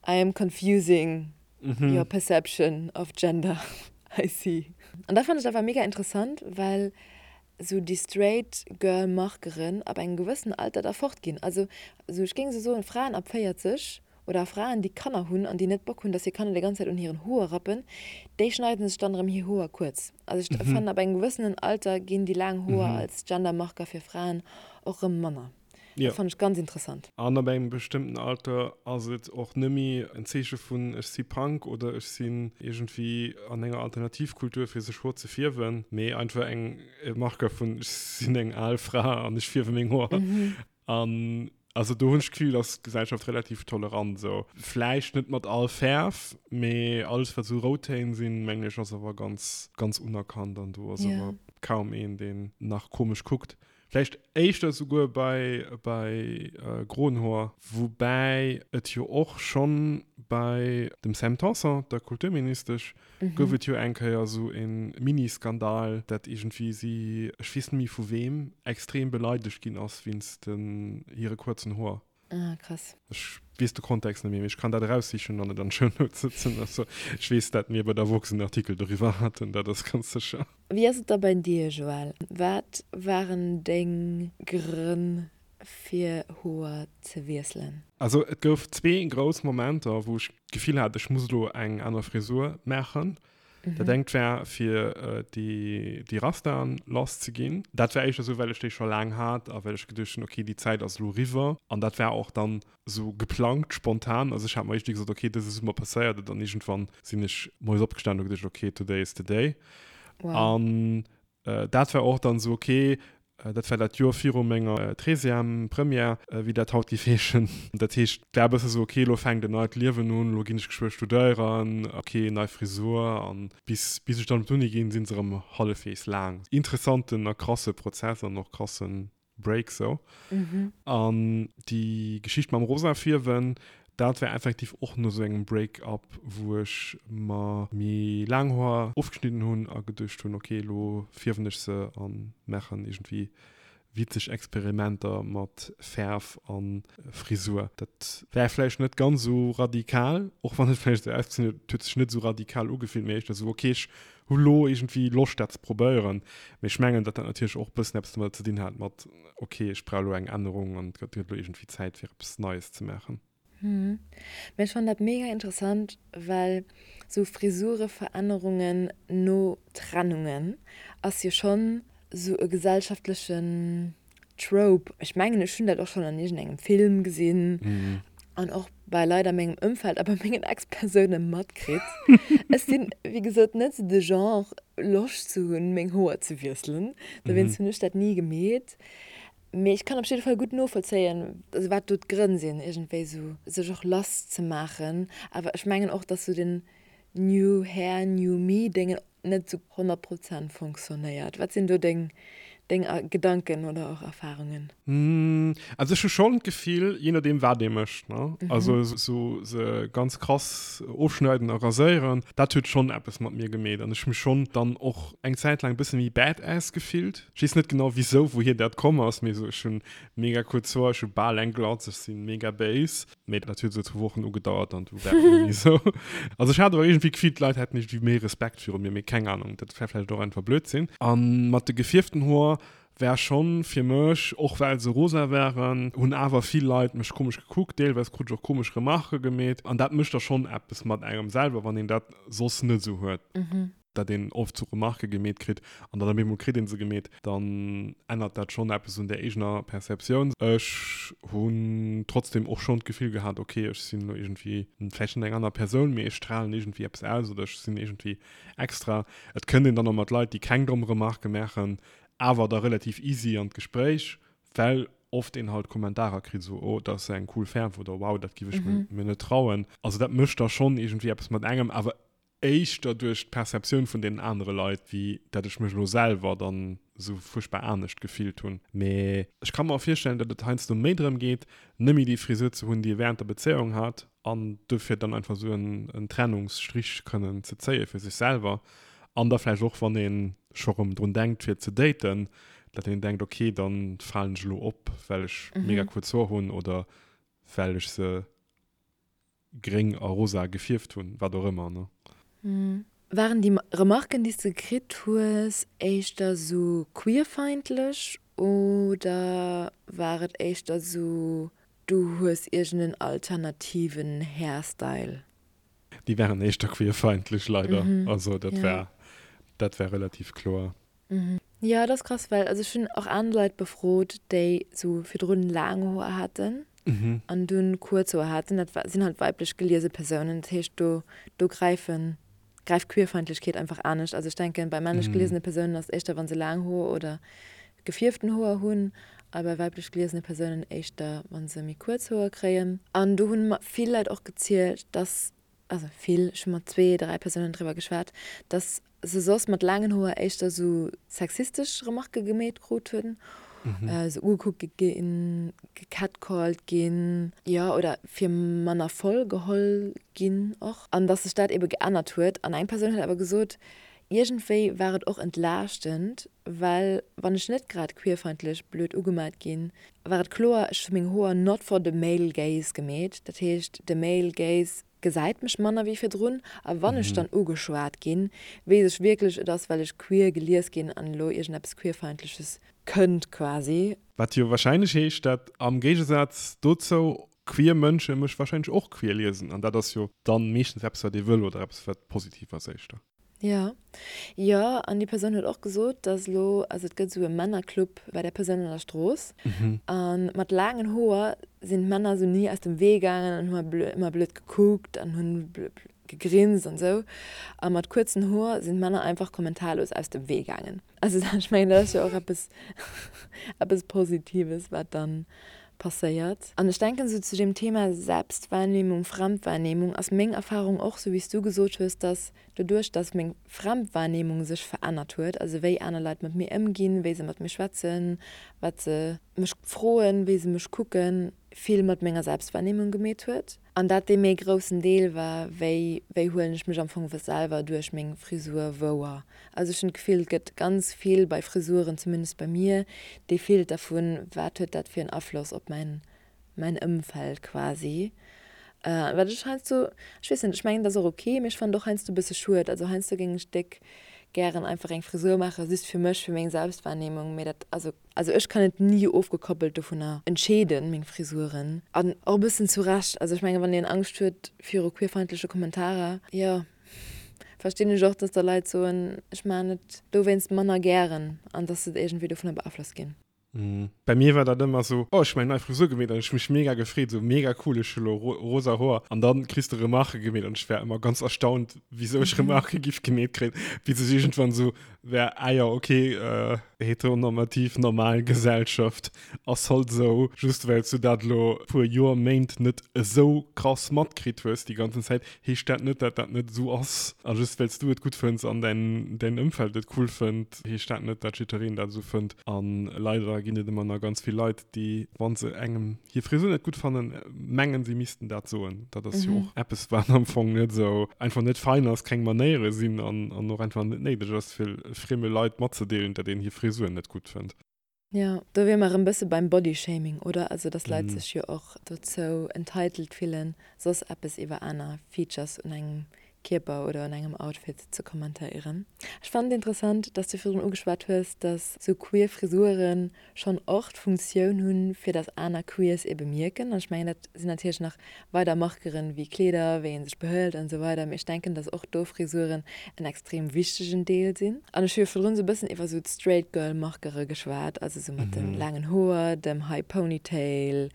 I am confusing your perception of gender, I see. An dat fannen ech awer mega interessant, well sou déi straight girl Markeren ab engem gewëssenen Alter da fort ginn. Also sou ech géing sou soen, Fraen ab 40 oder Fraen déi Kanner hunn an déi net Bock hunn, dass hir Kanner déi ganz Zäit un hiren Hoer rappen, déi schneiden sech dann erëm hir Hoer kuerz. Also ech fannen ab engem gewëssenen Alter ginn déi laang Hoer als Gendermarker fir Fraen och erëm manner. Jo. Dat fannen ech ganz interessant. An ab engem bestëmmten Alter ass et och nëmmi en Zeeche vun ech si Punk oder ech sinn iergendwéi an enger Alternativkultur fir sech Hoer ze fierwen, mee einfach eng e Marker vun ech sinn eng al Fra an ech fierwe meng Hoer. An also do hunn ech d'Gefill, ass d'Gesellschaft relativ tolerant esou. Vläicht net mat all Fäerf, mee alles wat esou Routtéin sinn, mengen ech ass awer ganz ganz unerkannt an do ass awer kaum een deen nach komesch kuckt. Vläicht éischter souguer bei, bei groen Hoer. Woubäi et jo och schonn bei dem Sam Tanson, der Kulturministesch, gouf et jo eng Kéier esou e Mini-Skandal, dat iergendwéi si, ech weess net méi vu weem, extrem beleidegt ginn ass wéinst den hire kuerzen Hoer. Ah, krass. Ech weess de Kontext net méi, mee ech kann dat eraussichen an et an d'Shownotes sëtzen. Also, ech weess, dat mir bei der Woxx en Artikel doriwwer haten, dat ass ganz sécher. Wéi ass et da bei dir, Joël? Wat waren deng Grënn fir Hoer ze wiesselen? Also, et gouf zwee grouss Momenter, wou ech d'Gefill hat, ech muss elo eng aner Frisur maachen. Dat engt war fir déi Rastaen lass ze ginn. Dat war éischter esou, well ech déi scho laang hat a well ech geduecht hunn, okay, déi Zäit ass elo eriwwer. An dat war och dann esou geplangt, spontan. Also ech hat mer iergendwéi gesot, okay, dëse Summer passéiert et. An iergendwann sinn ech moies opgestanen a hu geduecht, okay, today is the day. An Dat war och dann esou ok. Dat war dat Joer viru menger Treizième, Première, wéi dat haut géif heeschen. Dat heescht, et war e bësse sou, ok, elo fänkt en neit Liewen un, elo ginn ech geschwë studéieren, ok, nei Frisur. An bis, bis ech dann op d'Uni ginn, si se erëm hallefweegs laang. Interessanten a krasse Prozess an och krassen Break sou. An déi Geschicht mam rosa Fierwen, dat war effektiv och no sou engem Break-up, wou ech mer méi laang Hoer ofgeschnidden hunn a geduecht hunn, ok, elo fierwen ech se a maachen iergendwéi witzeg Experimenter mat Fäerf a Frisur. Dat war vläicht net ganz esou radikal, och wann et vläicht esou ausgesinn huet, et huet sech net esou radikal ugefillt, mee éischter esou, ok, ech hu lo iergendwéi Loscht dat ze probéieren, mee ech mengen, datt dat natierlech och e bëssen eppes domadder ze dinn hat mat, ok, ech brauch elo eng Ännerung an et gëtt elo iergendwéi Zäit fir eppes Neies ze maachen. Mee ech fannen dat mega interessant, well sou Frisureverännerungen no Trennungen ass jo schonn sou e gesellschaftlechen Trope, ech mengen ech hunn dat och schonn an iergendengem Film gesinn an och bei Leit a mengem Ëmfeld a bei mengen Ex-Persoune matkritt. Ech sinn, wéi gesot, net sou de Genre, Loscht ze hunn, meng Hoer ze wiesselen. Dowéinst hunn ech dat ni gemeet. Mee ech kann op jidde Fall gutt novollzéien, also wat do d'Grënn sinn, iergendwéi sou sech och lass ze maachen. Awer ech mengen och, dass sou den New Hair, New Me-Déngen net sou 100 Prozent fonctionnéiert. Wat sinn do deng, deng Gedanken oder och Erfarungen? Also ech hu schonn d'Gefill, jee nodeem wat ee mécht, ne, also esou se ganz krass ofschneiden a raséieren, dat huet schonn eppes mat mir gemeet an ech hu mech schonn dann och eng Zäit laang e bësse méi badass gefillt. Ech weess net genau wisou, wouhier dat komm ass, mee esou ech hunn mega kuerz Hoer, ech hu bal eng Glatz, ech si mega béis. Mee dat huet esou zwou Wochen ugedauert an du war et net méi esou. Also ech hat awer iergendwéi d'Gefill, d'Leit hätten iergendwéi méi Respekt viru mir, mee keng Ahnung, dat war vläicht och einfach Blödsinn. A mat de gefierften Hoer war schonn fir mech, och well se rosa waren, hunn awer vill Leit mech komesch gekuckt, deelweis krut ech och komesch Remarquë gemeet an dat mécht da schonn eppes mat engem selwer, wann een dat soss net esou huet. Dat een oft sou Remarquë gemeet kritt an dann op eemol kritt ee se gemeet, dann ännert dat schonn eppes un der eegener Perceptioun. Ech hunn trotzdem och schonn d'Gefill gehat, ok, ech sinn elo iergendwéi vläicht net eng aner Persoun, mee ech stralen iergendwéi eppes aus oder ech sinn iergendwéi extra. Et kënnt een dann och mat Leit, déi keng domm Remarquë maachen, awer da relativ easy an d'Gespréich, well oft een halt Kommentarer kritt, esou, oh, dat ass eng cool Fäerf oder wow, dat giff ech mir net trauen. Also dat mécht da schonn iergendwéi eppes mat engem, awer éischter duerch d'Perceptioun vun deenen anere Leit, wéi dat ech mech elo selwer dann esou fuerchtbar anescht gefillt hunn. Mee ech ka mer och virstellen, datt et heiansdo méi drëm geet, net méi déi Frisur ze hunn, déi ee wärend der Bezéiung hat, an dofir dann einfach esou en Trennungsstrich kënnen ze zéie fir sech selwer. An da vläicht och, wann ee scho rëm drun denkt fir ze daten, datt een denkt, ok, da falen ech elo op, well ech mega kuerz Hoer hunn oder well ech se gréng a rosa gefierft hunn, wat och ëmmer, ne? Waren déi Remarken, déi s de kritt hues, éischter sou queerfeindlech oder war et éischter sou, du hues iergend en alternativen Hairstyle? Déi waren éischter queerfeindlech, leider. Also dat war, dat war relativ kloer. Jo, dat ass krass, well also ech hunn och aner Leit befrot, déi sou virdrun laang Hoer haten an dunn kuerz Hoer haten. Dat sinn halt weiblech geliese Persounen, dat heescht do do gräifen gräift Queerfeindlechkeet einfach anescht. Also ech denken, bei männlech geliesene Persounen ass et éischter wa se laang Hoer oder gefierften Hoer hunn a bei weiblech geliesene Persounen éischter wa se méi kuerz Hoer kréien. An do hunn mer vill Leit och gezielt, dass also vill, ech hu mat zwee, dräi Persounen driwwer geschwat, dass se soss mat laangen Hoer éischter sou sexistesch Remarquë gemeet krut hunn, sou ugekuckt ginn, gecatcalled ginn, jo, oder fir manner voll geholl ginn och. An dass sech dat ebe geännert huet. An eng Persoun huet awer gesot, iergendwéi war et och entlaaschtend, well wann ech net grad queerfeindlech blöd ugemat ginn, war et kloer, ech hu meng Hoer not for the male gaze gemeet. Dat heescht, de male gaze gesäit mech manner wéi virdrun a wann ech dann ugeschwat ginn, weess ech wierklech, et ass well ech queer gelies ginn an elo iergendeppes Queerfeindleches kënnt quasi. Wat jo wahrscheinlech heescht, dat am Géigesaz dozou queer Mënsche mech wahrscheinlech och queer liesen an dat ass jo dann meeschtens eppes wat ee wëll oder eppes wat positiv ass éischter. Jo, jo, an déi Persoun huet och gesot, dass elo, also et gëtt esou e Männerclub bei där Persoun an der Strooss, a mat laangen Hoer sinn d'Männer esou ni aus dem Wee gaangen an hu ëmmer blöd gekuckt an hunn gegrinst an esou, a mat kuerzen Hoer sinn d'Männer einfach kommentarlos aus dem Wee gaangen. Also ech mengen, dat ass jo och eppes, eppes Positives, wat dann passéiert. An ech denken esou zu dem Thema Selbstwahrnehmung, Fremdwahrnehmung ass meng Erfahrung och, sou wéi s du gesot hues, dass doduerch, dass meng Fremdwahrnehmung sech verännert huet, also wéi aner Leit mat mir ëmginn, wéi se mat mir schwätzen, wat se mech froen, wéi se mech kucken, vill mat menger Selbstwahrnehmung gemeet huet. An dat dee méi groussen Deel war, wéi wéi huelen ech mech am Fong selwer duerch meng Frisur wouer. Also ech hunn d'Gefill, et gëtt ganz vill bei Frisuren, zumindest bei mir, dee Filter vun, wat huet dat fir en Afloss op mäin mäin Ëmfeld quasi. Wat ech heiansdo, ech weess net, ech mengen dat ass och ok, mee ech fannen et och heiansdo e bësse schued. Also heiansdo géing ech déck gären einfach eng Frisur maachen, just fir mech, fir meng Selbstwahrnehmung, mee dat, also. Also ech kann et ni ofgekoppelt dovunner entscheeden, meng Frisuren. An och e bëssen zu Recht. Also ech mengen, wann een Angscht huet viru queerfeindleche Kommentarer, jo, verstinn ech och, dass da Leit soen, ech maachen et dowéinst manner gären an dass se iergendwéi dovunner beaflosst ginn. Bei mir war dat ëmmer sou, oh ech hu meng nei Frisur gemeet an ech hu mech mega gefreet, sou mega cool, ech hu lo rosa Hoer an dann kriss de Remarque gemeet an ech war ëmmer ganz erstaunt, wisou ech Remarque giff gemeet kréien, bis ech iergendwann sou war, ah jo ok, heteronormativ normal Gesellschaft ass halt sou, just well s du dat lo puer Joer, Méint net esou krass matkritt hues déi ganzen Zäit, heescht dat net, dat dat net esou ass. A just well s du et gutt fënns an däin däin Ëmfeld et cool fënnt, heescht dat net, dat jiddereen dat esou fënnt. A leider ginn et ëmmer nach ganz vill Leit, déi, wa se engem hir Frisur net gutt fannen, mengen, si missten dat soen. Dat ass jo och eppes, wat am Fong net esou einfach net fein ass, keng Manéiere sinn an an och einfach net néideg ass, fir frieme Leit matzedeelen, dat een hir Frisur net gutt fënnt. Jo, do wier mer erëm bësse beim Bodyshaming, oder? Also dass Leit sech jo och dozou entitled fillen, soss eppes iwwer aner Features un engem Kierper oder un engem Outfit ze kommentéieren. Ech fannen et interessant, dass du virdrun ugeschwat hues, dass sou queer Frisuren schonn och d'Funktioun hunn, fir dass aner Queers ee bemierken. An ech mengen, dat sinn natierlech nach weider Markeren wéi Kleeder, wéi ee sech behëlt an esou weider, mee ech denken, dass och do Frisuren en extrem wichtegen Deel sinn. An ech hu jo virdrun esou e bëssen iwwer esou d'Straight Girl Markere geschwat, also esou mat de laangen Hoer, dem High Ponytail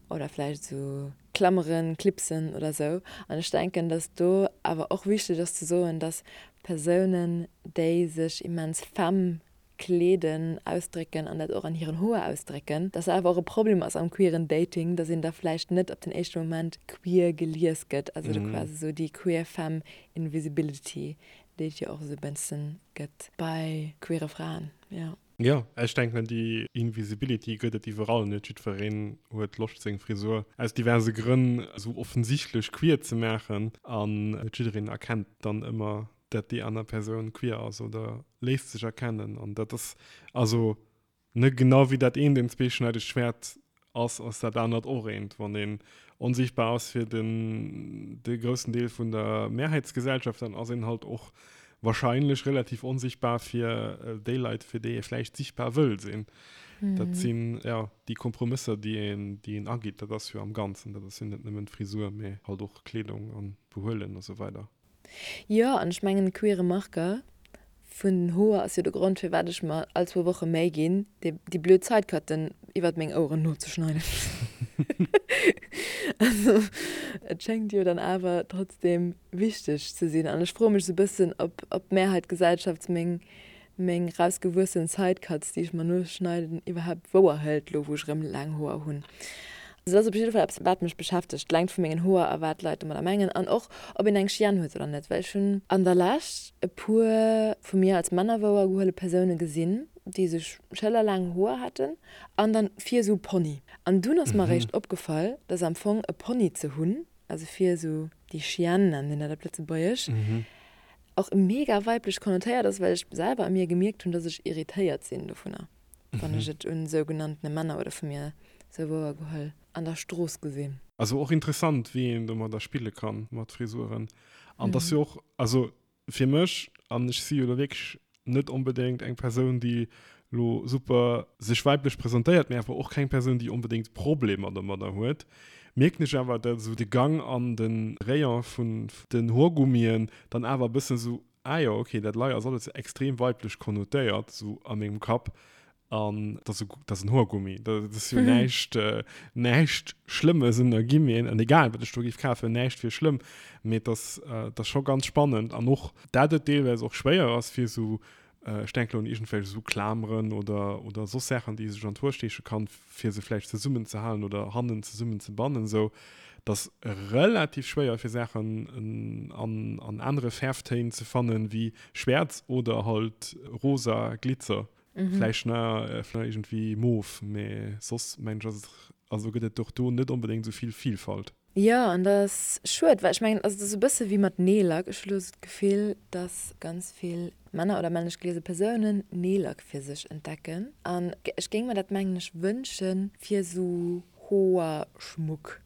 oder vläicht esou Klammeren, Clipsen oder esou. An ech denken, dass do awer och wichteg ass ze soen, dass Persounen, déi sech immens femme kleeden, ausdrécken an dat och an hiren Hoer ausdrécken, dass dat awer och e Problem ass am queeren Dating, dass een da vläicht net op den éischte Moment queer gelies gëtt, also do quasi esou déi queer femme invisibility, déi et jo och esou e bëssen gëtt bei queere Fraen, jo. Jo, ech denken déi Invisibility gëtt et iwwerall, net jiddwereen huet Loscht seng Frisur aus diverse Grënn esou offensichtlech queer ze maachen an net jiddereen erkennt dann ëmmer dat déi aner Persoun queer ass oder léisst sech erkennen an dat ass also ne genau wéi dat eent een zweeschneidegt Schwäert ass, ass dat anert och eent. Wann een onsichtbar ass fir den de groussen Deel vun der Mehrheitsgesellschaft, dann ass een halt och wahrscheinlech relativ onsichtbar fir déi Leit, fir déi ee vläicht sichtbar wëll sinn. Dat sinn ja déi Kompromësser, déi een déi een ageet. Dat ass jo am Ganzen, dat ass jo net nëmmen d'Frisur, mee halt och Kleedung an Behuelen a sou weider. Jo, an ech mengen, queere Marker vun den Hoer ass jo de Grond, firwat ech mer all zwou Woche Méi ginn, déi blöd Sidecutten iwwert meng Oueren nozeschneiden. Also, et schéngt jo dann awer trotzdem wichteg ze sinn. An ech froe mech esou e bëssen, ob d'Mehrheitgesellschaft meng meng rausgewuessen Sidecuts, déi ech mer noschneiden, iwwerhaapt wouer hëlt, lo wou ech erëm laang Hoer hunn. Also dat ass op jidde Fall eppes, wat mech beschäftegt, d'Längt vu mengen Hoer a wat d'Leit domadder mengen an och, ob een eng Chienne huet oder net. Well ech hunn an der Lescht e puer vu mir als Männer wouer gehuele Persoune gesinn, déi sech schëllerlaang Hoer haten an dann vir esou Pony. An dunn ass mer eréischt opgefall, dass am Fong e Pony ze hunn, also vir esou déi Chienne nennen een dat op Lëtzebuergesch, och mega weiblech konnotéiert ass, well ech selwer a mir gemierkt hunn, dass ech irritéiert sinn dovunner, wann ech et un sougenanntene Männer oder vu mir sou wouer geholl an der Strooss gesinn. Also och interessant, wéi een domadder spille kann, mat Frisuren. An dass jo och, also fir mech, an ech si jo lo wierklech net onbedéngt eng Persoun, déi lo super sech weiblech presentéiert, mee awer och keng Persoun, déi onbedéngt Problemer domadder huet, mierken ech awer, dat esou de Gang an de Rayon vun den Hoergummien dann awer e bëssen esou, ah jo, okay, dat lei ass alles extrem weiblech konnotéiert, esou a mengem Kapp. An dat ass, dat ass en Hoergummi, dat ass jo näischt, näischt Schlëmmes un der Gimmien. An egal, wat ech do géif kafen, näischt wier schlëmm. Mee et ass, et ass scho ganz spannend. An och, dat et deelweis och schwéier ass, fir esou, ech denken elo un iergendwelch esou Klameren oder, oder soss Saachen, déi ee sech an d'Hoer steeche kann, fir se vläicht zesummenzehalen oder hannen zesummenzebannen, esou, et ass relativ schwéier, fir Saachen an, an anere Fäerftéin ze fannen, wéi schwäerz oder halt rosa Glitzer. Vläicht nach iergendwéi mof, mee soss mengen ech ass et, also gëtt et och do net onbedéngt esou vill Vielfalt. Jo, an dat ass schued, well ech mengen, also et ass e bësse wéi mat Neellack. Ech hu lo esou d'Gefill, dass ganz vill Männer oder männlech geliese Persounen Neellack fir sech entdecken. An ech géing mer dat, mengen ech, wënsche fir esou Hoerschmuck.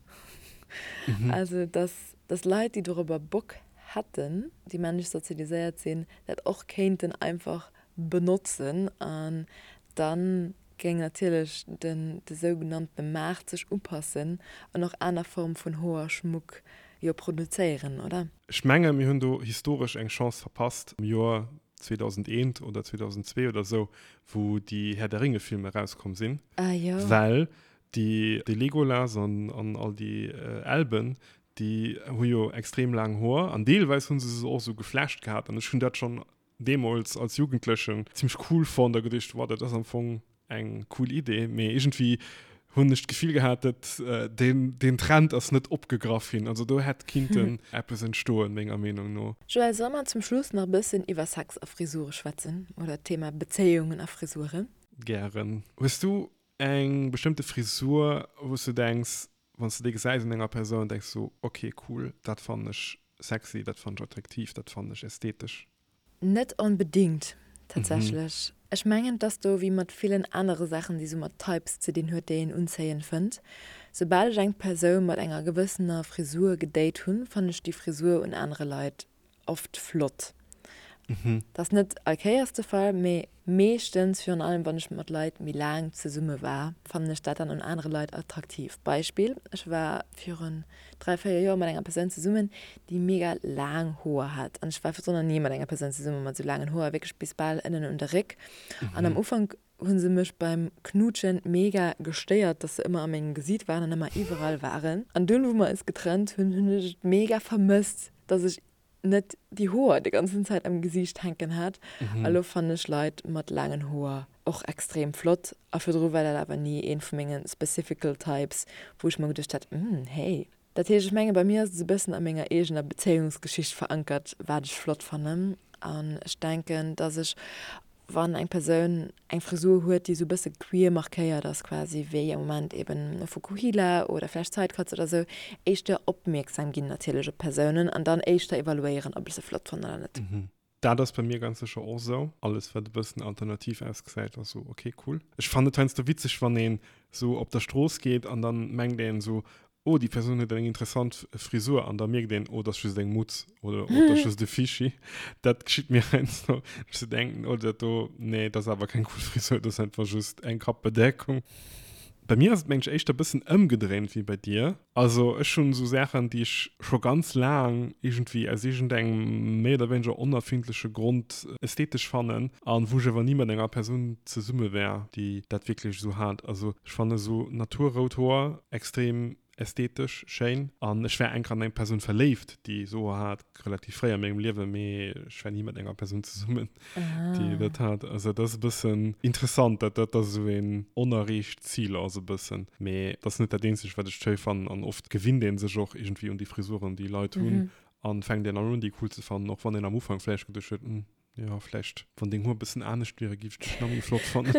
Also dass, dass Leit, déi dorobber Bock hätten, déi männlech sozialiséiert sinn, dat och kéinten einfach benotzen an dann géing natierlech den de sougenanntene Maart sech upassen an och aner Form vun Hoerschmuck jo produzéieren, oder? Ech menge mir hunn do historesch eng Chance verpasst am Joer. 2001 oder 2002 oder sou, wou déi Herr der Ringe Filmer erauskomm sinn. Ah jo. Well déi de Legolas an an all déi Elben, déi hu jo extrem laang Hoer an deelweis hu se se och sou geflecht gehat an ech hunn dat schonn deemools als Jugendlechen zimmlech cool fonnt a geduecht, wow, dat ass am Fong eng cool Idee, mee iergendwéi hunn ech d'Gefill gehat, dat deen deen Trend ass net opgegraff ginn. Also do hätt kinnten eppes entstoen, menger Meenung no. Joël, solle mer zum Schluss nach e bëssen iwwer Sex a Frisure schwätzen oder d'Thema Bezéiungen a Frisuren? Gären. Hues du eng bestëmmte Frisur, wou s du denks, wann s du déi gesäis un enger Persoun, denks du, ok cool, dat fannen ech sexy, dat fannen ech attraktiv, dat fannen ech ästhetesch? Net onbedingt, tatsächlech. Ech mengen, et ass do wéi mat villen anere Saachen, déi sou mat Types ze dinn huet, déi een unzéiend fënnt. Soubal ech eng Persoun mat enger gewëssener Frisur gedate hunn, fannen ech déi Frisur un anere Leit oft flott. Dat ass net all Kéiers de Fall, mee meeschtens, virun allem wann ech mat Leit méi laang zesumme war, fannen ech dat dann un anere Leit attraktiv. Beispill, Ech war virun 3, 4 Joer mat enger Persoun zesummen, déi mega laang Hoer hat. An ech war virdrun nach ni mat enger Persoun zesumme mat esou laangen Hoer, wierklech bis bal ënnen un de Réck. An am Ufank hu se mech beim Knuutschen mega gestéiert, dass se ëmmer a mengem Gesiit waren an ëmmer iwwerall waren. An dunn, wou mer eis getrennt hunn, hunn ech et mega vermësst, dass ech net déi Hoer déi ganzen Zäit am Gesiicht hänken hat. A lo fannen ech Leit mat laangen Hoer och extrem flott. A virdru war dat awer ni een vu menge specifical types, wou ech mer geduecht hat, Hm, hey. Dat heescht, ech menge bei mir ass et esou e bëssen a menger eegener Bezéiungsgeschicht verankert, wat ech flott fannen. An ech denken, dass ech wann eng Persoun eng Frisur huet, déi esou e bësse queer markéiert ass quasi, wéi am Moment eben e Fukuhila oder vläicht Sidecuts oder esou, éischter opmierksam ginn natierlech op d'Persounen an dann éischter evaluéieren, ob ech se flott fannen oder net. Dat ass bei mir ganz sécher och esou. Alles wat e bëssen alternativ ausgesäit ass esou ok cool. Ech fannen et heiansdo witzeg wann een esou op der Strooss geet an dann mengt een esou Oh, déi Persoun huet eng interessant Frisur an da mierkt een, oh, dat ass just eng Mutz oder oh, dat ass just e Fischi. Dat geschitt mir heiansdo, dass ech sou denken, oh, dat do, nee, dat ass awer keng cool Frisur, dat ass einfach just eng Kappbedeckung. Bei mir ass et, mengen ech, éischter e bëssen ëmgedréint wéi bei dir. Also ech hunn esou Saachen, déi ech scho ganz laang iergendwéi aus iergendengem méi oder wéineger onerfindleche Grond ästhetesch fannen an wou ech awer ni mat enger Persoun zesumme wär, déi dat wierklech esou hat. Also ech fanne sou naturrout Hoer extrem ästhetesch schéin an ech war enker an eng Persoun verléift, déi esou Hoer hat, relativ fréi a mengem Liewen, mee ech war ni mat enger Persoun zesummen, déi dat hat. Also dat ass e bëssen interessant, dat dat esou een onerreecht Zil ass e bëssen. Mee dat ass net dat eenzegt, wat ech schéi fannen an oft gewinnt ee sech och iergendwéi un déi Frisuren, déi Leit hunn an fänkt een an un, déi cool ze fannen, och wann een am Ufank vläicht geduecht huet, hm, Jo, vläicht wann deng Hoer bëssen anescht wieren, giff ech dech nach méi flott fannen.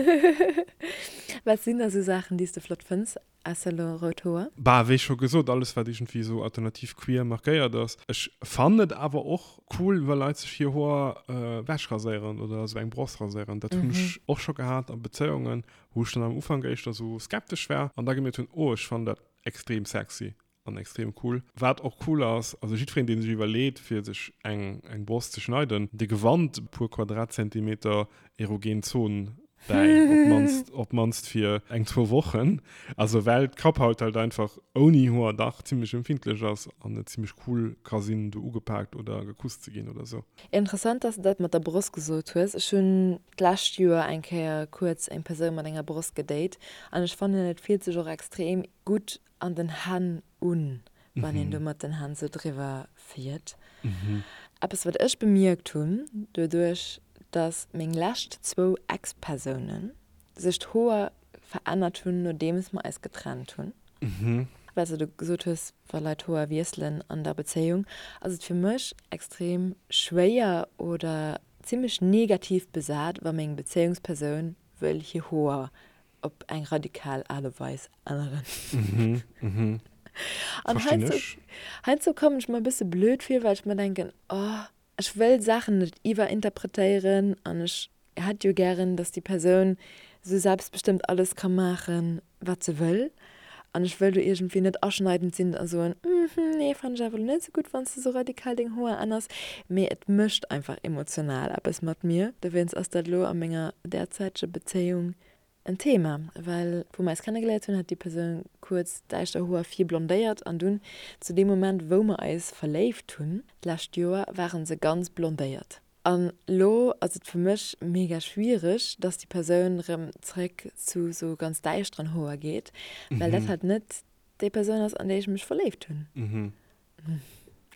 Wat sinn da sou Saachen, déi s de flott fënns, ausser elo rout Hoer? Bah, wéi scho gesot, alles wat iergendwéi esou alternativ queer markéiert ass. Ech fannen et awer och cool, wa Leit sech hir Hoer wechraséieren oder esou eng Bross raséieren. Dat hunn ech och scho gehat a Bezéiungen, wou ech dann am Ufank éischter esou skeptesch war an da gemierkt hunn, oh ech fannen dat extrem sexy. An extrem cool. Wat och cool ass, also jiddwereen deen sech iwwerleet fir sech eng eng Brost ze schneiden, dee gewannt e puer Quadratzentimeter erogen Zon bäi, op d'mannst op d'mannst fir eng zwou Wochen. Also well d'Kapphaut halt einfach ouni Hoer dach zimmlech empfindlech ass an et zimmlech cool ka sinn do ugepaakt oder gekusst ze ginn oder sou. Interessant dass de dat mat der Brost gesot hues. Ech hunn d'lescht Joer eng Kéier kuerz eng Persoun mat enger Brost gedate an ech fannen et fillt sech och extrem gutt an den Hänn un, wann een do mat den Hänn sou driwwer fiert. Eppes wat ech bemierkt hunn, doduerch dass meng lescht zwou Ex-Persounen sech d'Hoer verännert hunn nodeems mer eis getrennt hunn, well s de gesot hues, wa Leit d'Hoer wiesselen an der Bezéiung, ass et fir mech extrem schwéier oder zimmlech negativ besat, wa meng Bezéiungspersoun wëll hir Hoer op eng radikal Aart a Weis änneren. Mhm, mhm. An Verstinn heiansdo, ech. heiansdo kommen ech mer e bësse blöd vir, well ech mer denken, oh, ech wëll Saachen net iwwerinterpretéieren an ech hätt jo gären, dass déi Persoun esou selbstbestëmmt alles ka maachen, wat se wëll. An ech wëll do iergendwéi net aschneidend sinn a soen, mhm, nee, fannen ech awer elo net esou gutt, wann s de esou radikal deng Hoer änners. Mee et mécht einfach emotional eppes mat mir. Dowéinst ass dat elo a menger derzäiteger Bezéiung en Thema, well wou mer eis kennegeléiert hunn, hat déi Persoun kuerz däischter Hoer vir blondéiert an dunn zu deem Moment, wou mer eis verléift hunn, d'lescht Joer, ware se ganz blondéiert. An lo ass et fir mech mega schwiereg, dass déi Persoun rëm zréck zu sou ganz däischteren Hoer geet, well dat halt net déi Persoun ass, an déi ech mech verléift hunn.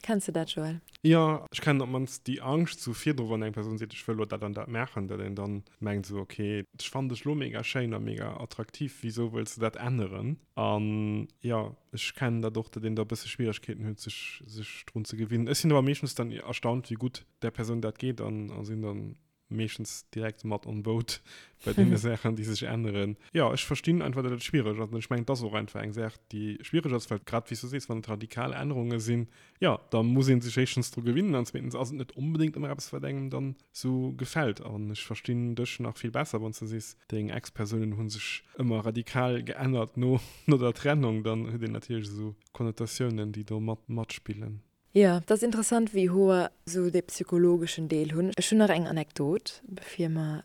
Kenns de dat, Joël? Jo, ech kennen op d'mannst déi Angscht sou virdru, wann eng Persoun seet, ech wëll lo dat an dat maachen, datt een dann mengt sou, ok, ech fannen dech lo mega schéin a mega attraktiv, wisou wëlls de dat änneren? An jo, ech kennen dat och, datt een da e bësse Schwieregkeeten huet, sech sech drun ze gewinnen. Ech sinn awer meeschtens dann erstaunt, wéi gutt där Persoun dat geet an a sinn dann meeschtens direkt mat on boat bei deene Saachen, déi sech änneren. Jo, ech verstinn einfach, datt et schwiereg ass. An ech mengen, et ass och einfach eng Saach, déi schwiereg ass, well grad wéi s du sees, wann et radikal Ännerunge sinn, jo, da muss ee sech éischtens dru gewinnen an zweetens ass et net onbedéngt ëmmer eppes, wat engem dann esou gefält. An ech verstinn dech nach vill besser, wann s du sees, deng Ex-Persounen hu sech ëmmer radikal geännert no der Trennung. Dann huet een natierlech esou Konnotatiounen, déi do mat matspillen. Jo, et ass interessant wéi Hoer sou dee psychologeschen Deel hunn. Ech hunn nach eng Anekdot bevir mer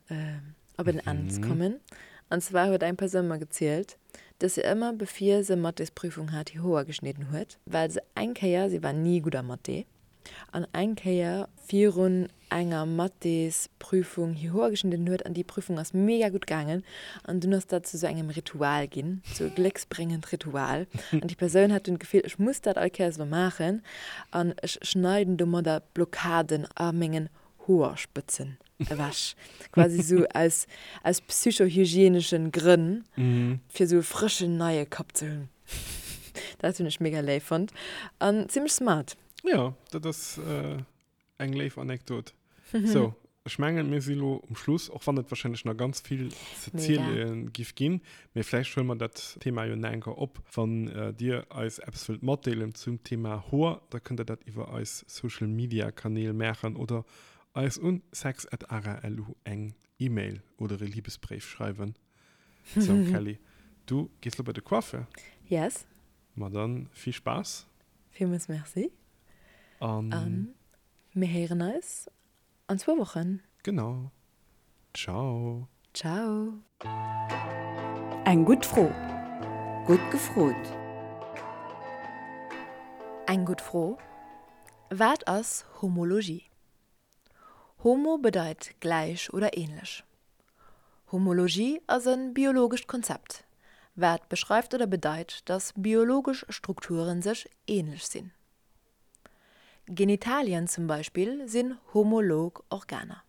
op en Enn kommen. An zwar huet eng Persoun mer gezielt, dass se ëmmer bevir se Mathésprüfung hat hir Hoer geschnidden huet, well se eng Kéier, si war ni gutt a Mathé, an eng Kéier virun enger Mathésprüfung hir Hoer geschnidden huet an déi Prüfung ass mega gutt gaangen an dunn ass dat zu sou engem Ritual ginn, sou e glécksbréngend Ritual an déi Persoun hat dunn d'Gefill, ech muss dat all Kéiers elo maachen an ech schneiden domadder d'Blockaden a mengen Hoerspëtzen ewech, quasi sou aus aus psychohygieneschen Grënn, fir sou e frëschen neie Kapp ze hunn. Dat hunn ech mega léif fonnt an zimmlech smart. Jo, dat ass Eng léif Anekdot. So, ech mengen, mir si lo um Schluss, och wann et wahrscheinlech nach ganz vill ze ziele giff ginn. Mee vläicht huele mer dat Thema jo nach eng Kéier op. Wann Dir eis eppes wëllt matdeelen zum Thema Hoer, da kënnt Der dat iwwer eis Social Media Kanäl maachen oder eis un sex@ara.lu eng E-Mail oder e Libesbréif schreiwen. So, Kelly, du gees lo bei de Coiffeur? Yes. Ma dann vill Spaass. Villmools Merci. An. An mir héieren eis an zwou Wochen. Genau. Ciao. Ciao. Eng gutt Fro. Gutt gefrot. Eng gutt Fro, Wat ass Homologie? Homo bedeit gläich oder ähnlech. Homologie ass e biologescht Konzept, wat beschreift oder bedeit, datt biologesch Strukture sech änlech sinn. Genitalien zum Beispill sinn homolog Organer.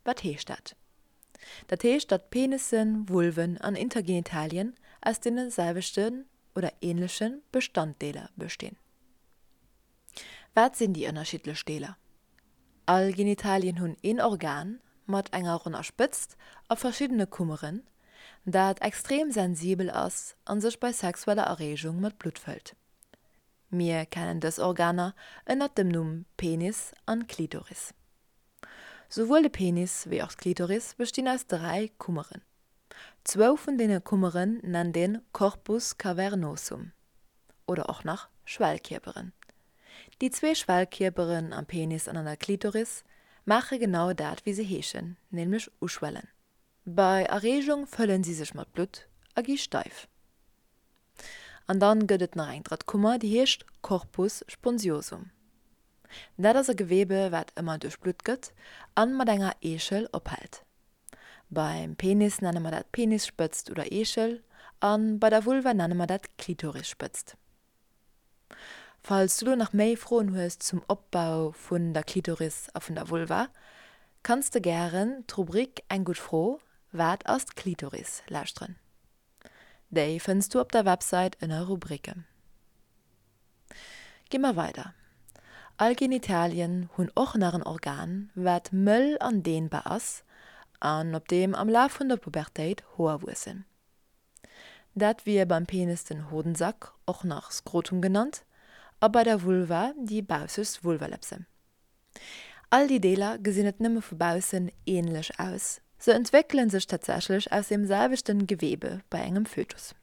Wat heescht dat? Dat heescht, datt Penissen, Vulven an Intergenitalien aus deene selwechten oder änleche Bestanddeeler bestinn. Wat sinn déi ënnerschiddlech Deeler? All Genitalien hunn een Organ mat enger ronner Spëtzt a verschiddene Kummeren, dat extrem sensibel ass a sech bei sexueller Erreegung mat Blutt fëllt. Mir kennen dës Organer ënnert dem Numm Penis an Klitoris. Souwuel de Penis wéi och d'Klitoris bestinn aus 3 Kummeren. Zwou vun deene Kummeren nennt een Corpus cavernosum oder och nach Schwellkierperen. Déi zwee Schwellkierperen am Penis an an der Klitoris maache genau dat wéi se heeschen, nämlech uschwellen. Bei Erreegung fëllen si sech mat Blutt a gi steif. An dann gëtt et nach eng drëtt Kummer, déi heescht Corpus spongiosum. Dat ass e Gewebe wat ëmmer duerchblutt gëtt an mat enger Eechel ophält. Beim Penis nenne mer dat Penisspëtzt oder Eechel an bei der Vulva nenne mer dat Klitorisspëtzt. Falls du lo nach méi Froen hues zum Opbau vun der Klitoris a vun der Vulva, kanns de gären d'Rubrik Eng gutt Fro, Wat ass d'Klitoris? lauschteren. Déi fënns du op der Websait ënner Rubriken. Gi mer weider. All Genitalien hunn och nach en Organ, wat mëll an dehnbar ass an op deem am Laf vun der Pubertéit Hoer wuessen. Dat wier beim Penis den Hodensack, och nach Skrotum genannt, a bei der Vulva déi baussegst Vulvalëpse. All déi Deeler gesinn net nëmme vu baussen änlech aus, se entwéckele sech tatsächlech aus deem selwechten Gewebe bei engem Fötus.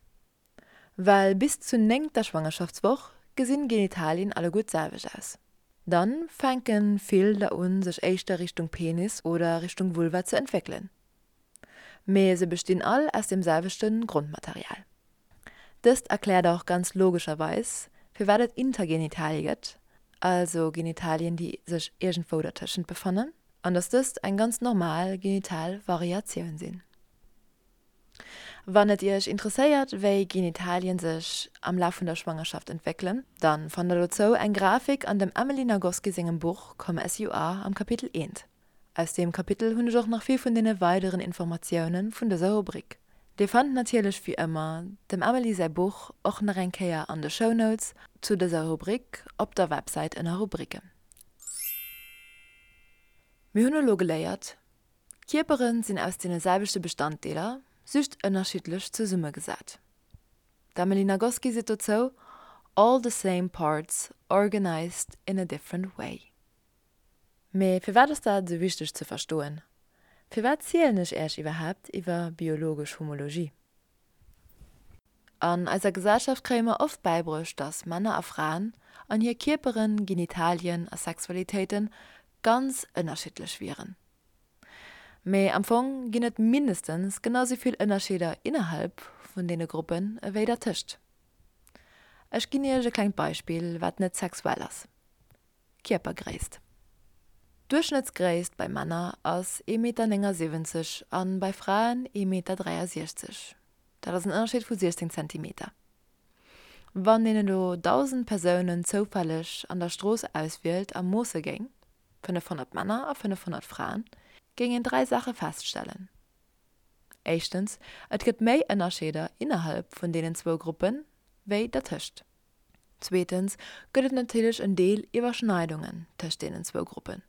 Well bis zur néngter Schwangerschaftswoch gesinn Genitalien alleguer d'selwecht aus. Dann fänken vill der un sech éischter Richtung Penis oder Richtung Vulva ze entwéckelen. Mee se bestinn all aus dem selwechten Grondmaterial. Dëst erkläert och ganz logescherweis firwat et Intergenitalie gëtt, also Genitalien déi sech iergendwou dertëschent befannen. An dass dëst eng ganz normal genital Variatioun sinn. Wann et iech interesséiert wéi Genitalien sech am Laf vun der Schwangerschaft entwéckelen, dann fannt der dozou eng Grafik an dem Emily Nagoski sengem Buch Come As You Are am Kapitel eent. Aus deem Kapitel hunn ech och nach vill vun deene weideren Informatiounen vun dëser Rubrik. Dir fannt natierlech wéi ëmmer dem Emily säi Buch och nach eng Kéier an de Shownotes zu dëser Rubrik op der Websäit ënner Rubriken. Mir hunn elo geléiert, Kierperen sinn aus deene selwechte Bestanddeeler, just ënnerschiddlech zesummegesat. D'Emily Nagoski seet dozou, All the same parts organized in a different way. Mee firwat ass dat esou wichteg ze verstoen? Firwat zielen ech Äech iwwerhaapt iwwer biologesch Homologie? An eiser Gesellschaft kréie mer oft bäibruecht, dass Männer a Fraen an hir Kierperen, Genitalien a Sexualitéiten ganz ënnerschiddlech wieren. Mee am Fong ginn et mindestens genau sou vill Ënnerscheeder innerhalb vun deene Gruppen ewéi dertëscht. Ech ginn iech e klengt Beispill, wat net sexuell ass, Kierpergréisst. D'Duerchschnëttsgréisst bei Männer ass ee Meter 79 an bei Fraen ee Meter 63. Dat ass en Ënnerscheed vu 16 Zentimeter. Wann een elo 1.000 Persounen zoufälleg an der Strooss auswielt a moosse géing, 500 Männer a 500 Fraen, géing een 3 Saache feststellen, Éischtens, et gëtt méi Ënnerscheeder innerhalb vun deenen zwou Gruppen, wéi dertëscht. Zweetens gëtt et natierlech en Deel Iwwerschneidungen tëscht deenen zwou Gruppen.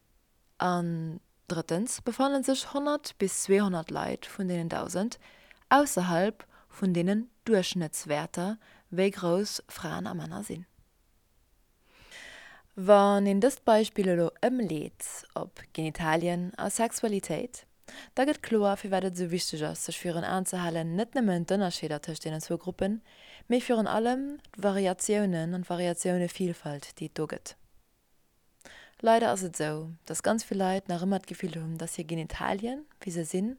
An drëttens befanne sech 100 bis 200 Leit vun deenen 1.000 ausserhalb vun deenen Duerchschnëttswäerter, wéi grouss Fraen a Männer sinn. Wann een dëst Beispill elo ëmleet op Genitalien a Sexualitéit, da gëtt kloer, firwat et esou wichteg ass, sech virun Aen ze halen, net nëmmen d'Ënnerscheeder tëscht deenen zwou Gruppen, mee virun allem d'Variatiounen an d'Variatioune-Vilfalt, déi et do gëtt. Leider ass et esou, dass ganz vill Leit nach ëmmer d'Gefill hunn, dass hir Genitalien, wéi se sinn,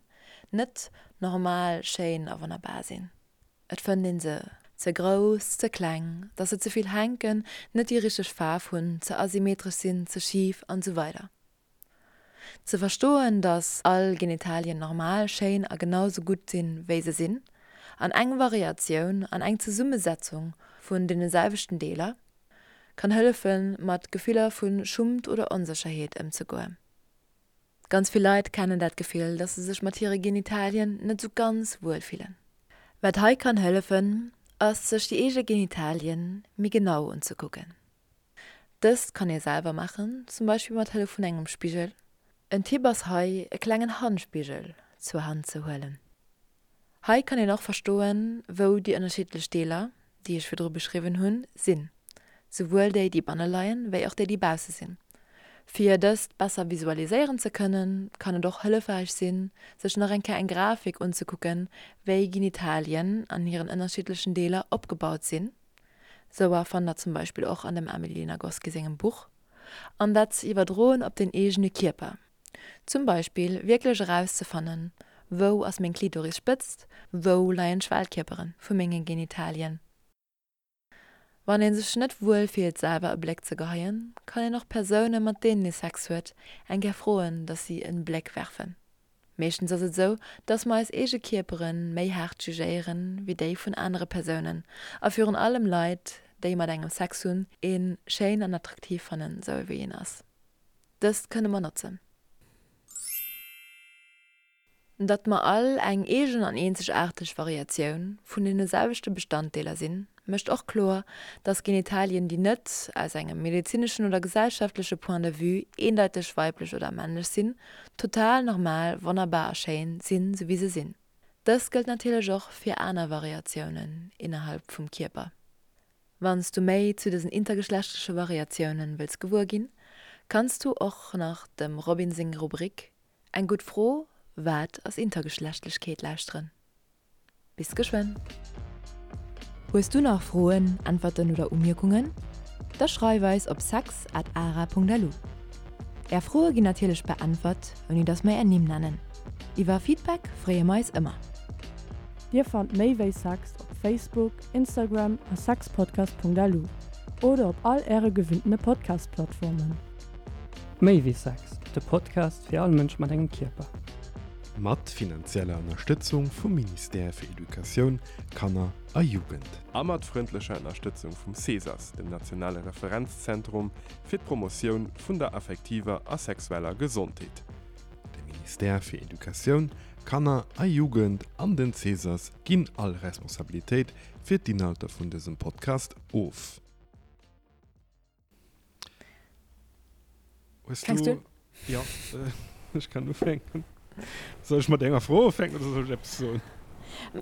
net normal, schéin a wonnerbar sinn. Et fënnt een se ze grouss, ze kleng, dass se ze vill hänken, net déi richteg Faarf hunn, ze asymmetresch sinn, ze schif an esou weider Ze verstoen, dass all Genitalien normal, schéin a genau sou gutt sinn, wéi se sinn, an eng Variatioun an eng Zesummesetzung vun deene selwechten Deeler, kann hëllefen, mat Gefiller vu Schummt oder Onsécherheet ëmzegoen. Ganz vill Leit kennen dat Gefill, dass se sech mat hire Genitalien net sou ganz wuel fillen. Wat hei kann hëllefen, ass sech déi eege Genitalien méi genau unzekucken. Dëst kann ee selwer maachen, zum Beispill mat Hëllef vun engem Spigel. En Tipp ass hei e klengen Handspigel zur Hand ze huelen. Hei kann een och verstoen, wou déi ënnerschiddlech Deeler, déi ech virdru beschriwwen hunn, sinn, souwuel déi, déi banne leien, wéi och déi, déi bausse sinn. Fir dëst besser visualiséieren ze kënnen, kann et och hëllefräich sinn, sech nach eng Kéier eng Grafik unzekucken, wéi Genitalien an hiren ënnerschiddlechen Deeler opgebaut sinn, souer fannt der zum Beispill och an dem Amélie Nagoski sengem Buch, an dat ze iwwerdroen op den eegene Kierper. Zum Beispill wierklech erauszefannen, wou ass meng Klitorisspëtzt, wou leien d'Schwellkierpere vu menge Genitalien. Wann ee sech net wuel fillt selwer e Bléck ze geheien, kann een och Persoune mat deenen ee Sex huet eng Kéier froen, dass si en Bléck werfen. Meeschtens ass et esou, dass mer eis eege Kierpere méi haart jugéieren wéi déi vun anere Persounen a virun allem Leit, déi mat engem Sex hunn, ee schéin an attraktiv fannen, sou wéi een ass. Dëst kënne mer notzen. Datt mer all eng eegen an eenzegaarteg Variatioun vun deene selwechte Bestanddeeler sinn, mécht och kloer, datt Genitalien, déi net aus engem medezineschen oder gesellschaftleche Point de vue eendeiteg weiblech oder männlech sinn, total normal, wonnerbar a schéin sinn, sou wéi se sinn. Dëst gëllt natierlech och fir aner Variatiounen innerhalb vum Kierper. Wann s du méi zu dësen intergeschlechtleche Variatiounen wëlls gewuer ginn, kanns du och nach dem Robin seng Rubrik Eng gutt Fro, Wat ass Intergeschlechtlechkeet? lauschteren. Bis geschwënn! Hues du nach Froen, Äntwerten oder Umierkungen? Da schreif eis op sex at ara.lu. Är Froe ginn natierlech beäntwert, ouni dass mer är Nimm nennen. Iwwer Feedback freeë mer eis ëmmer. Dir fannt méi wéi Sex op Facebook, Instagram a sexpodcast.lu oder op all äre gewinntene Podcast-Plattformen. Méi wéi Sex, de Podcast fir all Mënsch mat engem Kierper. Mat finanzieller Ënnerstëtzung vum Ministère fir Educatioun, Kanner a Jugend. A mat frëndlecher Ënnerstëtzung vum CESAS, dem nationale Referenzzentrum fir d'Promotioun vun der affektiver a sexueller Gesondheet. De Ministère fir Educatioun, Kanner a Jugend an den CESAS ginn all Responsabilitéit fir d'Inhalter vun dësem Podcast of. Hues Fänks du? Ja, ech kann ufänken. Soll ech mat enger Fro ufänken oder soll ech eppes soen?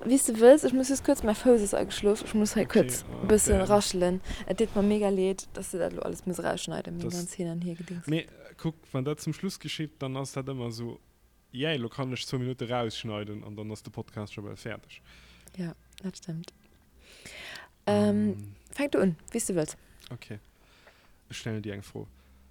Wéi s de wëlls. Ech muss just kuerz, mäi Fouss ass ageschlof, ech muss hei kuerz e bësse raschelen. Et deet mer mega leed, dass de dat elo alles muss erausschneiden, meng ganz Hin an Hiergedings. Mee kuck, wann dat zum Schluss geschitt, dann ass dat ëmmer esou, Yay, elo kann ech zwou Minutte rausschneiden an dann ass de Podcast scho bal fäerdeg. Jo, dat stëmmt. Fänk du un, wéi s de wëlls. Ok, ech stellen dir eng Fro.